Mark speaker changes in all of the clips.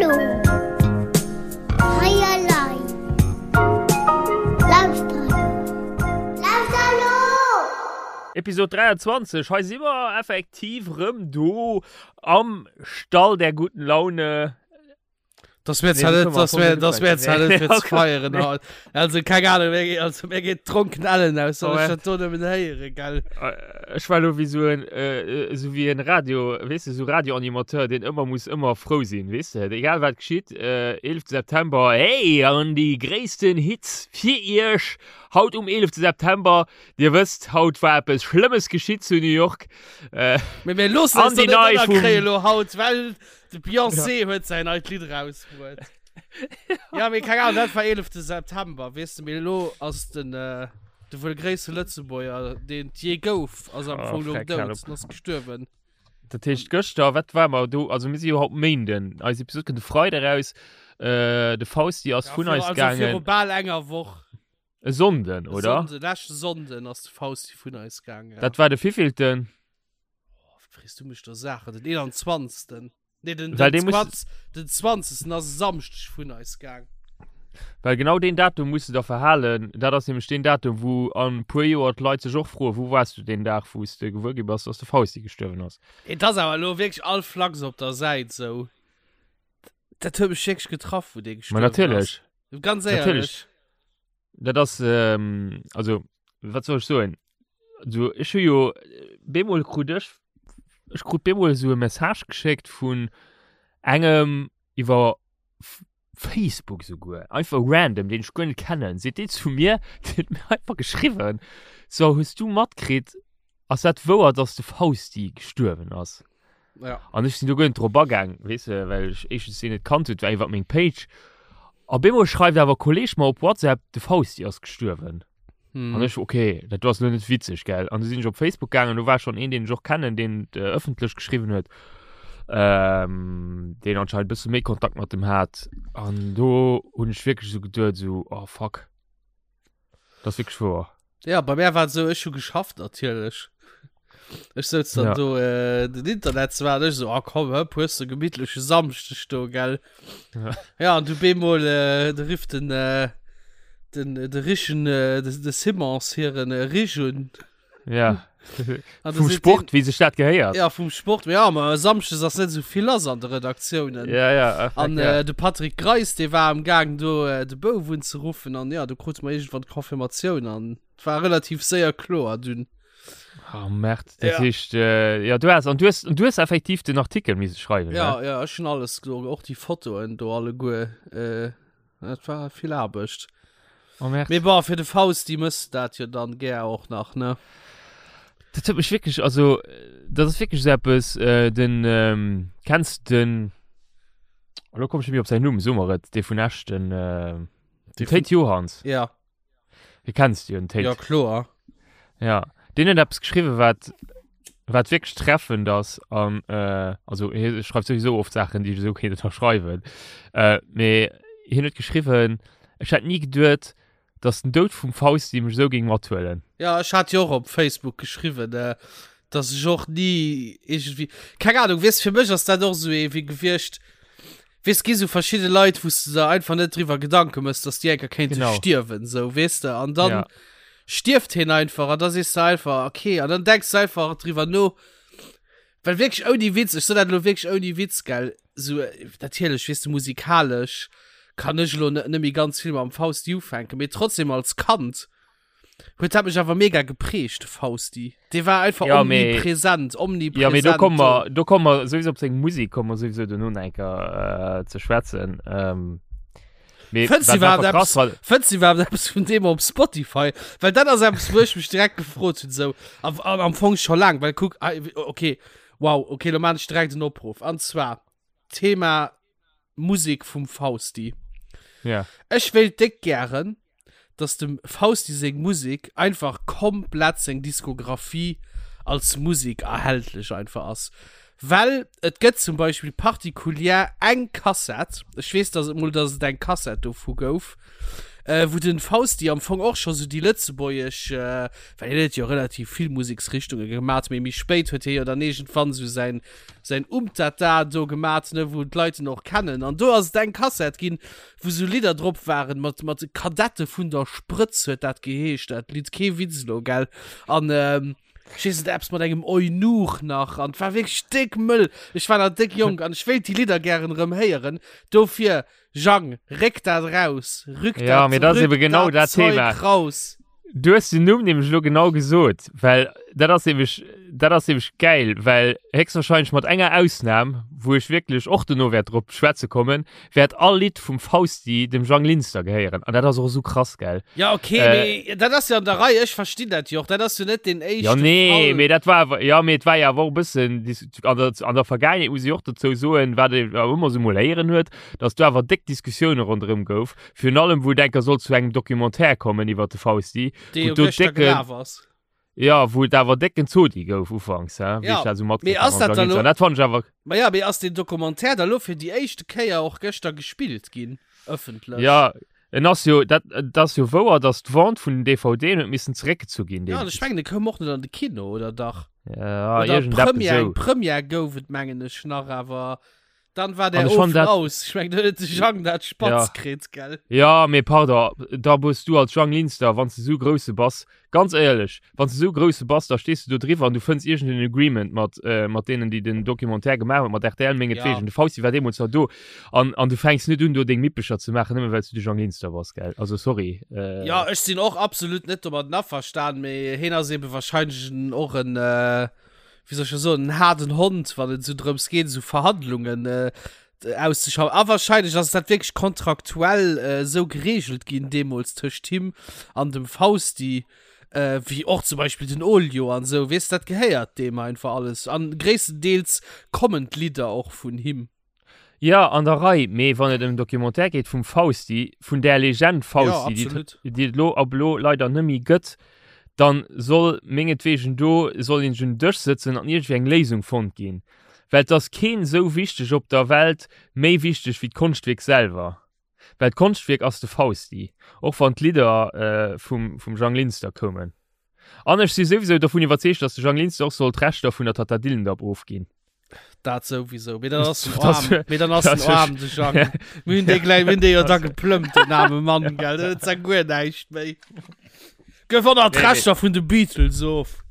Speaker 1: Hallo. Hei elei. Lauschter elo. Lauschter elo!
Speaker 2: Episode 23, hei si mer effektiv rëm do am Stall der guten Laune.
Speaker 3: Das wär zwar net, das wär, das wär zwar net fir ze feieren haut. Also keng Ahnung, mir geet, also mir geet d'Dronken ellen aus, wann ech dat do nëmmen héieren, gell.
Speaker 2: Ech war lo wéi sou en, sou wéi en Radio, weess de, sou Radioanimateur, deen ëmmer muss ëmmer frou sinn, weess de, egal wat geschitt, 11 September, hey, an déi gréissten Hits fir iech haut um 11 September, dir wësst, haut war eppes Schlëmmes geschitt zu New York.
Speaker 3: Mee mir loossen eis
Speaker 2: An
Speaker 3: do
Speaker 2: déi
Speaker 3: net
Speaker 2: nei vum.
Speaker 3: ënnerkréien elo haut, well De Beyoncé huet säin neit Lidd erausbruet. Ja, mee keng Ahnung, dat war 11. September, weess de, mee elo ass den, äh, de wuel gréisste Lëtzebuerger, deen et jee gouf, ass am
Speaker 2: Oh,
Speaker 3: Fong lo
Speaker 2: freck,
Speaker 3: dout,
Speaker 2: hal op.
Speaker 3: en ass gestuerwen.
Speaker 2: Dat heescht gëschter, wat war mer do? Also mir si jo haut Méinden. Eis Episod kënnt de Freide raus. Äh, de Fausti ass
Speaker 3: Ja,
Speaker 2: vun
Speaker 3: viru,
Speaker 2: eis
Speaker 3: also viru
Speaker 2: gaangen.
Speaker 3: bal enger Woch.
Speaker 2: E Sonnden,
Speaker 3: E
Speaker 2: oder?
Speaker 3: Sonnden, leschte Sonnden ass de Fausti vun eis gaangen, ja.
Speaker 2: Dat war de wievielten?
Speaker 3: Oh, wat frees du mech da Saachen? Den 21. Nee, den,
Speaker 2: Well
Speaker 3: den,
Speaker 2: dee muss-
Speaker 3: 20, den 20. ass e Samschdeg vun eis gaang.
Speaker 2: Well genau deen Datum muss de der verhalen. Dat ass nämlech deen Datum, wou an e puer Joer d'Leit sech och froen, wou waars du deen Dag, wou s de gewuer gi bass, dass de Fausti gestuerwen ass.
Speaker 3: Et ass awer elo wierklech all Flachs op der Säit sou. Dat huet mech wierklech getraff, wou dee
Speaker 2: Ma
Speaker 3: gestuerwen ass.
Speaker 2: natierlech.
Speaker 3: Ganz
Speaker 2: Natierlech.
Speaker 3: éierlech.
Speaker 2: Dat ass, ähm, also, wat soll ech soen? Also, ech hu jo, bemol krut ech, ech krut bemol esou e Message geschéckt vun engem iwwer Facebook souguer, einfach random, deen ech guer net kennen, seet dee zu mir, deen huet mir einfach geschriwwen, so, hues du matkritt, ass dat wouer, dass de Fausti gestuerwen ass?
Speaker 3: Ja.
Speaker 2: An ech sinn do guer net drop agaang, weess de, well ech éischtens deen net kannt hunn, et war iwwer meng Page. A bemol schreift awer e Kolleeg mer op WhatsApp, de Fausti ass gestuerwen.
Speaker 3: Hm.
Speaker 2: An ech, okay, dat do ass lo net witzeg, gell. An du sinn ech op Facebook gaangen, do war schonn een, deen ech och kennen, deen et äh, ëffentlech geschriwwen huet, ähm, deen anscheinend e bësse méi Kontakt mat dem hat. An do hunn ech wierklech esou geduet, esou, oh fuck. Dat ass wierklech wouer.
Speaker 3: Ja, bei mir war et esou, ech hu geschafft natierlech. Ech souz dann
Speaker 2: Ja.
Speaker 3: do äh, den Internet zwar an ech so, ah komm, hëpp, hues de gemittleche Samschdeg do, gell?
Speaker 2: Ja.
Speaker 3: Ja, an du bemol, äh, de rifft den, äh, den, de Richen, äh, de, de Simons hiren äh, Rich un.
Speaker 2: Ja.
Speaker 3: An
Speaker 2: Vum Sport, wéi sech dat gehéiert.
Speaker 3: Ja, vum Sport. Ja, ma Samschdes ass net esou vill lass an de Redaktiounen.
Speaker 2: Ja, ja. Ach,
Speaker 3: An
Speaker 2: ja.
Speaker 3: äh, de Patrick Greis, dee war am Gaang do äh, de Bouf unzeruffen an ja, do krute mer iergendwann d'Confirmatioun an et war relativ séier kloer dunn.
Speaker 2: Oh, Merd. Dat
Speaker 3: Ja.
Speaker 2: heescht, äh, ja, du hast, an du hast, du hast effektiv den Artikel misse schreiwen,
Speaker 3: Ja,
Speaker 2: ne?
Speaker 3: ja, ech hunn alles do, och déi Fotoen do alleguer. Äh, dat war vill Aarbecht.
Speaker 2: Oh, Merd.
Speaker 3: Mee bon, fir de Fausti mëss de dat jo dann gär och nach, ne?
Speaker 2: Dat huet mech wierklech, also, dat ass wierklech esou eppes, äh, den, ähm, kenns den, elo komm ech net méi op säin Numm, so mer et, dee vun Esch, den, äh, den Théid Johanns.
Speaker 3: Ja.
Speaker 2: Dee kenns du jo, den Théid.
Speaker 3: Ja, kloer.
Speaker 2: Ja, deen huet eppes geschriwwen, wat, wat wierklech treffend ass an, äh, also hie schreift souwisou oft Saachen, déi ech esou kéint ënnerschreiwen, äh, mee hien huet geschriwwen, ech hätt ni geduet, dass den Doud vum Fausti mech esou géing mathuelen.
Speaker 3: Ja, ech hat jo och op Facebook geschriwwen, äh, dass ech och ni iergendwéi, keng Ahnung, weess, fir mech ass dat och esou ee wéi gewiescht, weess, gi sou verschidde Leit, wou s de der einfach net driwwer Gedanke mëss, dass déi eng Kéier kéinte
Speaker 2: Genau.
Speaker 3: stierwen, sou, weess de, an dann
Speaker 2: Ja.
Speaker 3: stierft hien einfach an da sees de einfach, okay, an dann denks de einfach driwwer no, well wierklech ouni Witz, ech soen dat elo wierklech ouni Witz, gell, sou, natierlech, weess de, musikalesch kann ech elo net méi ganz vill mam Fausti ufänken, mee trotzdem als Kand Huet dat mech awer mega geprägt, de Fausti. Dee war einfach
Speaker 2: Ja, mee-
Speaker 3: omnipresent, omnipresent.
Speaker 2: Ja, mee do komme mer, do komme mer souwisou op seng Musek komme mer souwisou dono nach eng Kéier äh, ze schwätzen. Ähm, mee
Speaker 3: Fënns du
Speaker 2: wat
Speaker 3: iwwerhaapt
Speaker 2: einfach krass
Speaker 3: eppes,
Speaker 2: war,
Speaker 3: fënns du iwwerhaapt eppes vun deem op Spotify? Well dat ass eppes, wou ech mech direkt gefrot hunn, sou, a, an am Fong scho laang, well kuck, ah, okay, wow, okay, lo maan ech direkt en Opruff. An zwar, Thema Musek vum Fausti.
Speaker 2: Ja.
Speaker 3: Ech wéilt déck gären, dass dem Fausti seng Musek einfach komplett seng Diskografie als Musek erhältlech einfach ass. Well et gëtt zum Beispill particulier eng Kassett, ech weess dass et mol dass et eng Kassett dovu gouf. Äh, wou den Fausti am Fong och scho sou déi lëtzebuergesch, äh, well hien huet jo relativ vill Museksrichtunge gemat, mee méi spéit huet hie jo dann iergendwann sou säin, säin Umtata do gemat, ne, wou d'Leit en och kennen. An do ass et eng Kassett ginn, wou sou Lidder drop waren mat, mat Kadette vun der Sprëtz huet dat geheescht, dat Lidd, kee Witz elo, gell. An, ähm, ech weess net, eppes mat engem Eunuch nach, an et war wierklech déck mëll. Ech war nach déck jonk an ech wéilt déi Lidder gären erëm héieren. Dofir Jang, réck dat raus! Rück
Speaker 2: ja, dat, dat ass eben genau dat
Speaker 3: Zeug Thema. raus!
Speaker 2: Du hues den Numm nämlech elo genau gesot, well dat ass nämlech, dat ass nämlech gäil, well héchstwahrscheinlech mat enger Ausnam, wou ech wierklech och dono wäert drop schwätze kommen, wäert all Lidd vum Fausti dem Jang Linster gehéieren. An dat ass och esou krass, gell?
Speaker 3: Ja, okay, äh, mee dat ass jo an der Rei, ech verstinn dat jo och, dat ass jo net deen éischte
Speaker 2: Ja, nee, Fall. mee dat war awer, ja, mee et war jo awer och e bëssen an der, an der Vergaangenheet, muss ech och dozou soen, wat ee awer ëmmer esou mol héieren huet, dass do awer déck Diskussioune ronderëm gouf, virun allem wou et enker sollt zu engem Documentaire kommen iwwer de Fausti,
Speaker 3: Dee jo gëschter gelaf ass.
Speaker 2: Ja, wou et awer décken Zodi gouf ufanks, hä,
Speaker 3: wéi ech dat esou matkritt
Speaker 2: hat mam Jean Linster. Dat
Speaker 3: fannt ech awer. Ma ja, mee ass deen Documentaire da lo fir déi éischte Kéier och gëschter gespillt ginn, ëffentlech?
Speaker 2: Ja, en ass jo, dat, et ass jo wouer, dass d'Vente vun den DVDen huet missen zeréckgezu ginn
Speaker 3: Ja, an ech mengen, e koum och net an de Kino, oder dach?
Speaker 2: Ja, iergendeppes
Speaker 3: esou. Eng Première gouf et, mengen ech nach, awer Dann war der Ofen dat... aus. Ich mein, de Jang dat Spatz
Speaker 2: ja.
Speaker 3: kritt, gell?
Speaker 2: Ja, mee pardon, da bus du als Jang Linster, wann du so grousse bass, ganz éierlech, wann du so grousse bass, da stehst du do driwwer an du fënns irgenden Agreement mat, äh, mat denen, déi den Documentaire gemaach hunn, mat RTL mengetwegen. Ja. De Fausti war deemools nach do. An, an du fänks net un, do deng Mippecher ze maachen, nëmme well du de Jang Linster bass, gell? Also sorry.
Speaker 3: Äh... Ja, ech sinn och absolut net domat averstan, mee heen ass eben wahrscheinlech och en, äh, wéi soll ech dat soen, en haarden Hond, wann et esou drëms geet, esou Verhandlungen äh, auszuschaffen. A wahrscheinlech ass dat wierklech kontraktuell äh, esou geregelt ginn deemools tëscht him an dem Fausti, äh, wéi och zum Beispill den Olio an esou, weess, dat gehéiert deem einfach alles. An gréisstendeels kommen d'Lidder och vun him.
Speaker 2: Jo, an der Rei, mee wann et ëm en Documentaire geet vum Fausti, vun där Legend Fausti, déi et, déi et elo ab elo leider nëmmi gëtt, dann soll mengetwegen do soll een un den Dësch sëtzen an iergendwéi eng Léisung fonnt ginn. Well et ass keen esou wichteg op der Welt, méi wichteg wéi d'Konschtwierk selwer. Well d'Konschtwierk ass de Fausti, och wann d'Lidder vum vum Jang Linster koumen. An ech si souwisou dovun iwwerzeegt, datt de Jang Linster och soll d'Rechter vun der Tata Dillendapp ofginn.
Speaker 3: Dat souwisou. Mee dann ass en aarm, mee dann ass en aarm, de Jang. Mir hunn dee gläich, mir hunn dee jo da geplëmmt, den aarme Mann, gell. Deen huet zwar guer näischt méi. Gëff och nach d'Rechter vun de Beatles of.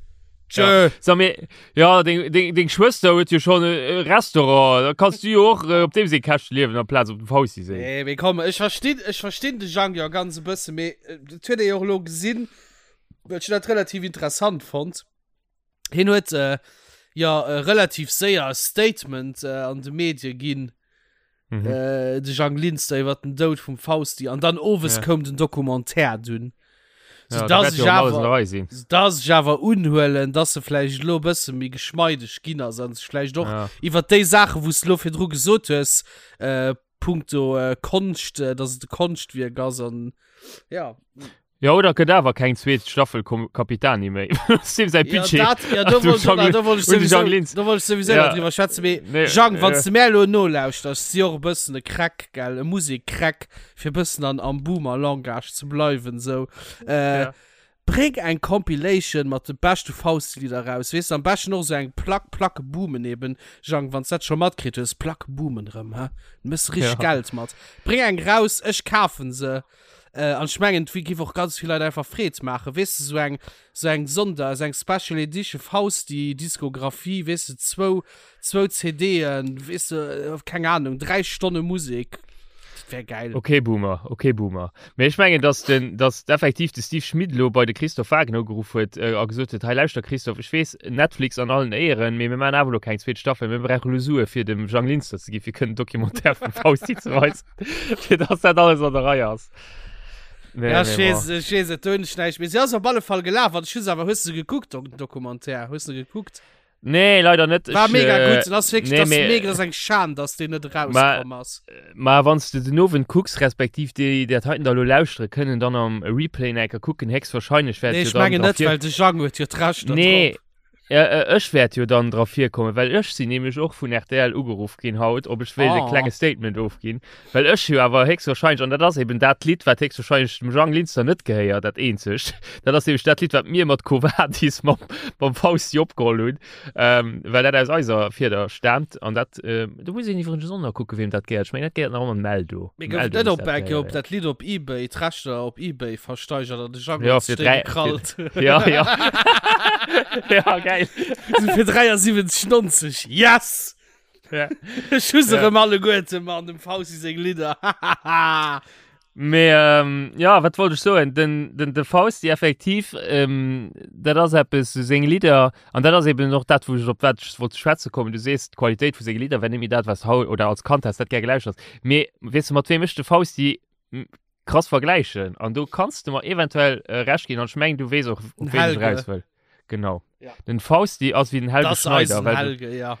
Speaker 2: Tschö. Ja. Sag mir, ja, deng, deng, deng Schwëster huet jo schon e Restaurant. Da kanns du jo och äh, op deem seng Käschte liewen amplaz op dem Fausti seng.
Speaker 3: Nee, mee komm, ech verstinn, ech verstinn de Jang jo ganz e bësse, mee äh, dat huet ee jo och elo gesinn, well ech dat relativ interessant fonnt. Hien huet äh, jo äh, relativ séier e Statement äh, an de Medie ginn, mhm. äh, de Jang Linster iwwer den Doud vum Fausti an dann owes ja. koum den Documentaire dunn. So, ja, dass ich awer, so, dass ich awer unhuelen, dass se vläicht lo bësse méi geschmeideg ginn ass an sech vläicht och ja. iwwer déi Saache wous lo virdru gesot hues äh, punkto äh, Konscht, äh, dass et e Konschtwierk ass an ja.
Speaker 2: Ja oder gëtt awer keng zweet Staffel Capitani méi. Sim säi
Speaker 3: Budget. Ja, dat, ja, do wollt da wollt ech sowieso, do wollt ech sowieso ja. drüber schwätzen. Mee, nee, Jang, wann ja. du mär lo nolauschters, si och e bëssen e Crack, gell, e Musek-Crack, fir bëssen an, am Boomer-Langage ze bleiwen, sou. Äh, ja. Bréng eng Compilation mat de beschte Faustlieder raus, weess de, am beschten och sou eng Plack, Placke boomen eben, Jang, wann s dat scho matkritt hues, Placke boomen rëm, hä, du méchs richteg ja. Geld mat. Bréng eng raus, ech kafen se. Äh, an ech mengen, et giff och ganz vill Leit einfach Freed maachen, weess de, sou eng, sou eng Sonder, sou eng Special Edition Fausti Diskografie, weess de, zwou, zwou CDen, weess de, keng Ahnung, 3 Stonne Musek, dat wär gäil.
Speaker 2: Ok Boomer, ok Boomer. Mee ech mengen, dass den, dass effektiv de Steve Schmit elo bei de Christophe Wagner ugeruff huet a gesot huet, hei lauschter Christophe, ech weess, Netflix an allen Éieren, mee mir maachen awer elo keng zweet Staffel, mir brauche elo Sue fir dem Jang Linster ze gi fir kënnen Documentaire vum Fausti ze weisen. fir dass dat alles an der Rei ass.
Speaker 3: Nee, ja, ich weiß, ich weiß, et hunn ech näischt. Mee si ass op alle Fall gelaf. An ech hu se awer, hues du se gekuckt, den Documentaire? Hues du gekuckt?
Speaker 2: Nee, leider net.
Speaker 3: War mega äh, gutt. Das wirklich, nee, das mee, mega, das eng Schan, dass deen net rauskomm ass.
Speaker 2: Ma wann du den Owend kucks, respektiv déi, déi dat heiten da lo lauschtere kënnen, dann am Replay enker kucken, héchstwahrscheinlech
Speaker 3: wäert Nee, ech mengen net, well de Jang huet jo d'Rechter
Speaker 2: nee. drop. Ja, äh, ech wäert jo dann dra virkommen, well ech sinn nämlech och vun RTL ugeruff ginn haut, ob ech wéilt e
Speaker 3: Oh.
Speaker 2: klenge Statement ofginn, well ech jo awer héchstwahrscheinlech, an dat ass eben dat Lidd, wat héchstwahrscheinlech dem Jang Linster net gehéiert, dat eenzegt, dat ass nämlech dat Lidd, wat mir mat Quo Vadis mam, mam Fausti opgeholl hunn, ähm, well dat aus eiser Fieder staamt an dat, äh, do muss een iwwregens och nach kucken, weem dat gehéiert. Ech mengen, dat gehéiert nach ëmmer dem Eldo.
Speaker 3: Mir
Speaker 2: Dem
Speaker 3: gouf
Speaker 2: Eldo
Speaker 3: net
Speaker 2: muss
Speaker 3: op
Speaker 2: dat
Speaker 3: eng Kéier op
Speaker 2: gehéieren.
Speaker 3: dat Lidd op eBay, d'Rechter op eBay versteigert an de Jang
Speaker 2: Ja,
Speaker 3: huet
Speaker 2: fir
Speaker 3: sech déi
Speaker 2: dräi, fir,
Speaker 3: gekrallt.
Speaker 2: ja, ja. ja, geil.
Speaker 3: So fir 73,90. Yes!
Speaker 2: Ja.
Speaker 3: Ech hu se
Speaker 2: Ja.
Speaker 3: erëm alleguerte, Mann, dem Fausti seng Lidder.
Speaker 2: Mee ähm, ja, wat wollt ech soen? Den, den, de Fausti effektiv, ähm, dat ass eppes, so seng Lidder, an dat ass eben och dat, wou ech op wat ech wollt ze schwätze kommen. Du sees, d'Qualitéit vu senge Lidder wär net méi dat, wat s haut oder als Kand häss dat gär gelauschtert. Mee weess de, mat weem ech de Fausti krass vergläichen? An do kanns de mer eventuell äh, Recht ginn, an ech mengen, du weess och, op
Speaker 3: Den
Speaker 2: ween ech
Speaker 3: Helge.
Speaker 2: eraus wëll. Genau.
Speaker 3: Ja.
Speaker 2: Den Fausti ass wéi den Helge
Speaker 3: Das
Speaker 2: Schneider,
Speaker 3: eisen
Speaker 2: well de
Speaker 3: Helge, ja.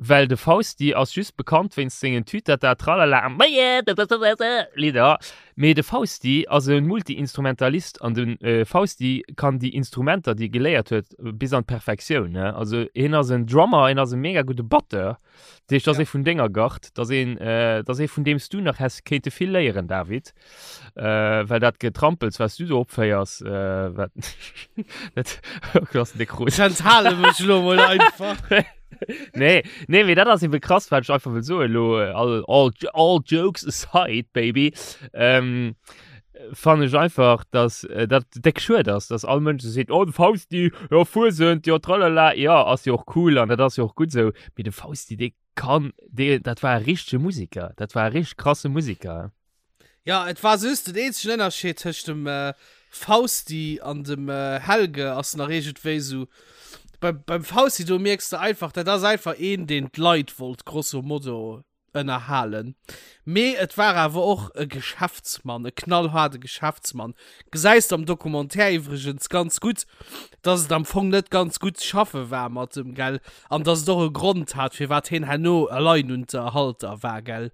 Speaker 2: Well de Fausti ass just bekannt wéinst sengen Tütata Tralala Lidder, mee de Fausti ass e Multi-Instrumentalist an de Fausti kann déi Instrumenter déi e geléiert huet bis an d'Perfektioun. Also hien ass en Drummer, hien ass e mega gudde Batteur, dat heescht dat ass ee vun denger Gard, dat ass een, dat ass ee vun deem s du nach häss kéinte vill léieren David, well dat Getrampels wat s du do opféiers, wat dat ass déck rot.
Speaker 3: Ech enthale mech elo mol einfach.
Speaker 2: Nee, nee, mee dat ass eben krass, wat ech einfach wëll soen elo, all, all, all jokes aside, baby, ähm, fannen ech einfach, dass äh, dat déck schued ass, dass all Mënsch esou seet, oh, de Fausti, jo, Fuesent, jo, tralala, jo, ass jo och cool an dat ass jo och gutt esou, mee de Fausti, dee kann, dee, dat war e richtege Musiker, dat war e richteg krasse Musiker.
Speaker 3: Ja, et war just den eenzegen Ënnerscheed tëscht dem äh, Fausti an dem äh, Helge ass nach iergendwéi sou. Beim, beim Fausti do mierks de einfach, dat ass einfach een, deen d'Leit wollt grosso modo ënnerhalen. Mee et war awer och e Geschäftsmann, e knallhaarde Geschäftsmann. Gesäis de am Documentaire iwwregens ganz gutt, dass et am Fong net ganz gutt ze schaffe war mat em, gell? An dass et och e Grond hat, firwat hien herno Alleinunterhalter war, gell?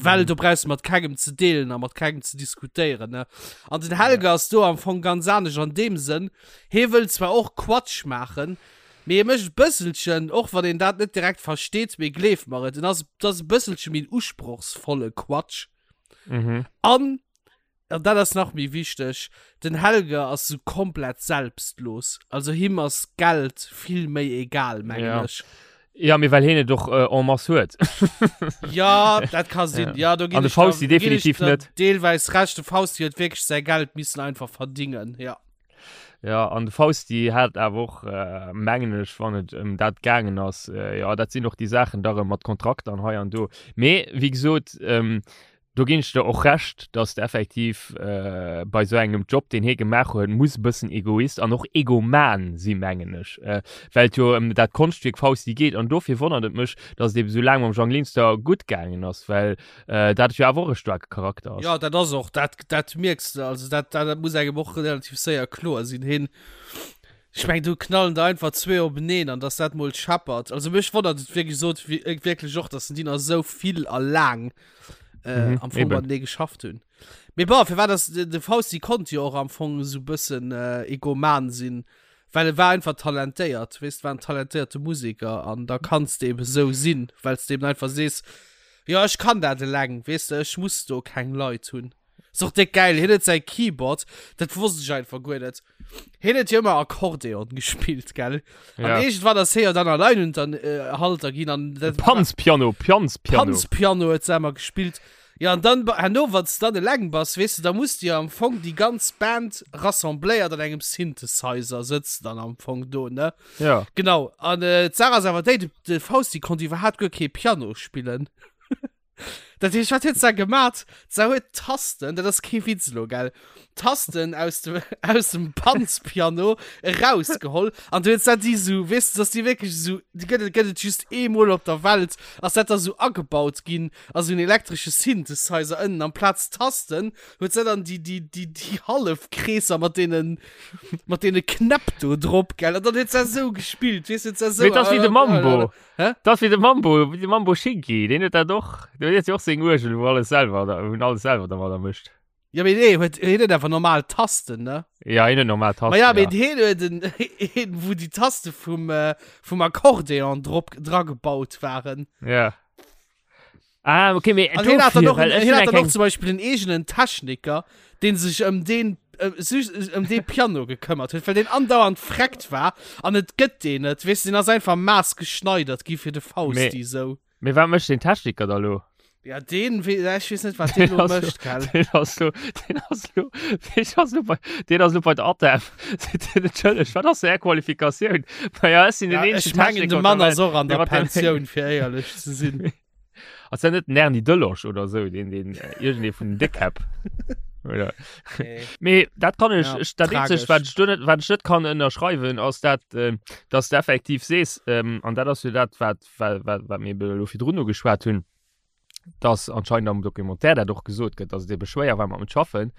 Speaker 3: Well do brauchs de mat kengem ze deelen a mat kengem ze diskutéieren, ne? An den Helge ass do am Fong ganz anescht an deem Sënn, hee wëll zwar och Quatsch maachen, mee hie mécht e bësselchen, och wann een dat net direkt versteet, mee gleef mer et, en ass, et ass e bësselche méi en usprochsvolle Quatsch.
Speaker 2: Mhm.
Speaker 3: An An dat ass nach méi wichteg, den Helge ass sou komplett selbstlos. Also him ass Geld vill méi egal, mengen
Speaker 2: Ja.
Speaker 3: ech.
Speaker 2: Ja, mee well hien et och äh, en masse huet.
Speaker 3: Ja, dat ka sinn. Ja, do ginn
Speaker 2: An de
Speaker 3: ech der-
Speaker 2: Fausti
Speaker 3: do ginn ech
Speaker 2: definitiv
Speaker 3: der
Speaker 2: net.
Speaker 3: Deelweis Recht, de Fausti huet wierklech säi Geld missen einfach verdingen, ja.
Speaker 2: Ja, an de Fausti hat awer och, äh, mengen ech, wann et ëm dat gaangen ass, äh, ja, dat sinn och déi Saachen da rëm mat Kontrakter an hei an do. Mee, wéi gesot, ähm, Do ginn ech der och Recht, dass de effektiv bei esou engem Job, deen hie gemaach huet, muss e bëssen Egoist an och Egoman si mengen ech, well et jo ëm dat Konschtwierk Fausti geet. An dofir wonnert et mech, dass et ebe sou laang mam Jang Linster gutt gaangen ass, well dat jo awer och e staarke Charakter ass.
Speaker 3: Jo, dat ass och, dat, dat mierks de, also dat, dat muss engem och relativ séier kloer sinn. Hien, ech meng, do knallen der einfach zwee openeen an dass dat mol scheppert. Also mech wonnert et wéi gesot wierklech och, dass den déi nach esou vill a laang äh, mhm, am Fong matenee geschafft hunn. Mee bon, firwat ass de, de Fausti konnt jo och am Fong sou bëssen äh, egoman sinn, well e war einfach talentéiert, weess, war en talentéierte Musiker an da kanns de eben sou sinn, well s de eben einfach sees, jo ech kann dat eleng, weess de, ech muss do keng Leit hunn. Ass och déck gäil, hien huet säi Keyboard, dat wosst ech einfach guer net. Hien huet jo ëmmer Akkordeon gespillt, gell? An
Speaker 2: Ja.
Speaker 3: iergendwann ass hie jo dann Alleinunterhalter ginn an dat
Speaker 2: Panzpiano, Pianzpiano.
Speaker 3: Panzpiano huet se ëmmer gespillt. Ja, an dann, herno, wann s de dann eleng bass, weess de, da muss de jo am Fong déi ganz Band rassembléiert an engem Synthesizer sëtzt dann am Fong do, ne?
Speaker 2: Ja.
Speaker 3: Genau. An äh, d'Saach ass awer déi, de, de Fausti konnt iwwerhaapt guer kee Piano spillen. Dat heescht, wat huet se gemat? Se huet Tasten, dat ass kee Witz elo, gell? Tasten aus dem, aus dem Panzpiano erausgeholl an du huet se déi sou, weess de, dass déi wierklech sou, déi gëtt et, gëtt et just eemol op der Welt, ass dat da sou agebaut ginn a sou en elektresche Synthesizer ënnen amplaz Tasten huet se dann déi, déi, déi, déi Hallefkreesser mat deenen, mat deene Knäpp do drop, gell? An dann huet se sou gespillt, weess de, huet se sou.
Speaker 2: Mee dat ass wéi de Mambo.
Speaker 3: Hä?
Speaker 2: Dat ass wéi de Mambo, wéi de Mambo Schinki, deen huet dat och, deen huet jo och seng Uergel, wou alles selwer, wou en alles selwer dermadder mécht.
Speaker 3: Ja, mee nee, huet, hien huet einfach normal Tasten, ne?
Speaker 2: Ja, hien huet normal Tasten.
Speaker 3: Ma ja, mee
Speaker 2: ja.
Speaker 3: hien huet en, een, wou déi Taste vum, äh, vum Akkordeon drop, dra gebaut waren.
Speaker 2: Ja. Ah, okay, mee
Speaker 3: An hien hat dann
Speaker 2: dofir,
Speaker 3: och,
Speaker 2: well ech
Speaker 3: hien
Speaker 2: hunn
Speaker 3: hat
Speaker 2: eng
Speaker 3: dann och
Speaker 2: kleng-
Speaker 3: zum Beispiel en eegenen Techniker, deen sech ëm deen, äh, sech ëm dee Piano gekëmmert huet, well deen andauernd freckt war an et gëtt deen net, weess du, deen ass einfach maßgeschneidert gi fir de Fausti, sou.
Speaker 2: Mee wat mécht den Techniker da lo?
Speaker 3: Ja, deen, we ech weess net, wat deen lo mécht, gell?
Speaker 2: Deen ass lo, deen ass lo, deen ass lo bei, deen ass lo bei der ATEM. Entschëlleg, wat ass är Qualifikatioun? Ma ja, ech sinn den
Speaker 3: Ja,
Speaker 2: eenzegen
Speaker 3: ech mengen,
Speaker 2: Techniker
Speaker 3: de
Speaker 2: op der
Speaker 3: Mann
Speaker 2: Welt,
Speaker 3: ass och an
Speaker 2: dee
Speaker 3: der
Speaker 2: mat dem-
Speaker 3: Pensioun, fir éierlech ze sinn.
Speaker 2: Ass dat net den Erny Delosch oder sou, deen, deen, äh, iergendee vun den Déckkäpp? Oder?
Speaker 3: Nee.
Speaker 2: Mee dat kann ech,
Speaker 3: Ja,
Speaker 2: ech dat eenzegt,
Speaker 3: tragesch.
Speaker 2: wat ech do net, wat ech net kann ënnerschreiwen, ass dat, äh, dass de effektiv sees, ähm, an dat ass jo dat, wat, wat, wat, wat mir elo virdrun ugeschwat hunn, dass anscheinend am Documentaire dat och gesot gëtt, dass et ebe schwéier war mat em schaffen.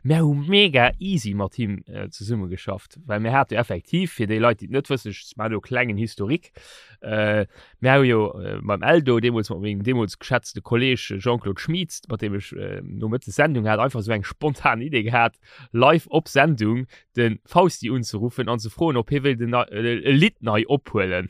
Speaker 2: Mir hu mega easy mat him äh, zesumme geschafft, well mir hate effektiv, fir déi Leit, déi et net wëssen, ech maachen do e klengen Historique, äh, mir hu jo äh, beim Eldo, deemools mat mengem deemools geschätzte Kolleg Jean-Claude Schmieds, mat deem ech äh, nomëttes Sendung hat, einfach esou eng spontan Idee gehat, live op Sendung de Fausti unzeruffen an ze froen, ob hie wéilt en e Lidd nei ophuelen.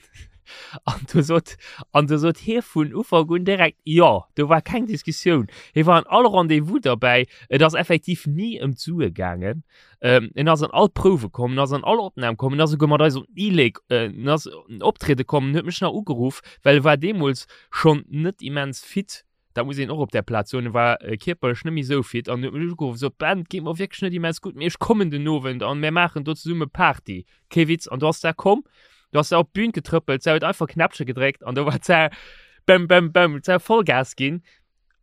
Speaker 2: An du sot, an du sot hie vun Ufank un direkt jo, do war keng Diskussioun. Hie war an all Rendez-vous derbäi, et ass effektiv ni ëm d'Sue gaangen. Ähm, en ass an all Prouwe komm, en ass an all Opnam komm, en ass esouguer mat eis op d'E-Lake, äh, en ass optriede komm, en huet mech nach ugeruff, well e war deemools schonn net immens fit. Dat muss een och op där Plaz soen, e war kierperlech net méi esou fit an huet mech ugeruff, sot, Ben, et geet mer wierklech net immens gutt, mee ech kommen den Owend an mär maachen do zesumme Party. Kee Witz. An du ass da komm, du ass da op d'Bün getrëppelt, se huet einfach Knäppche gedréckt an do war se bäm, bäm, bäm, se huet Vollgas ginn.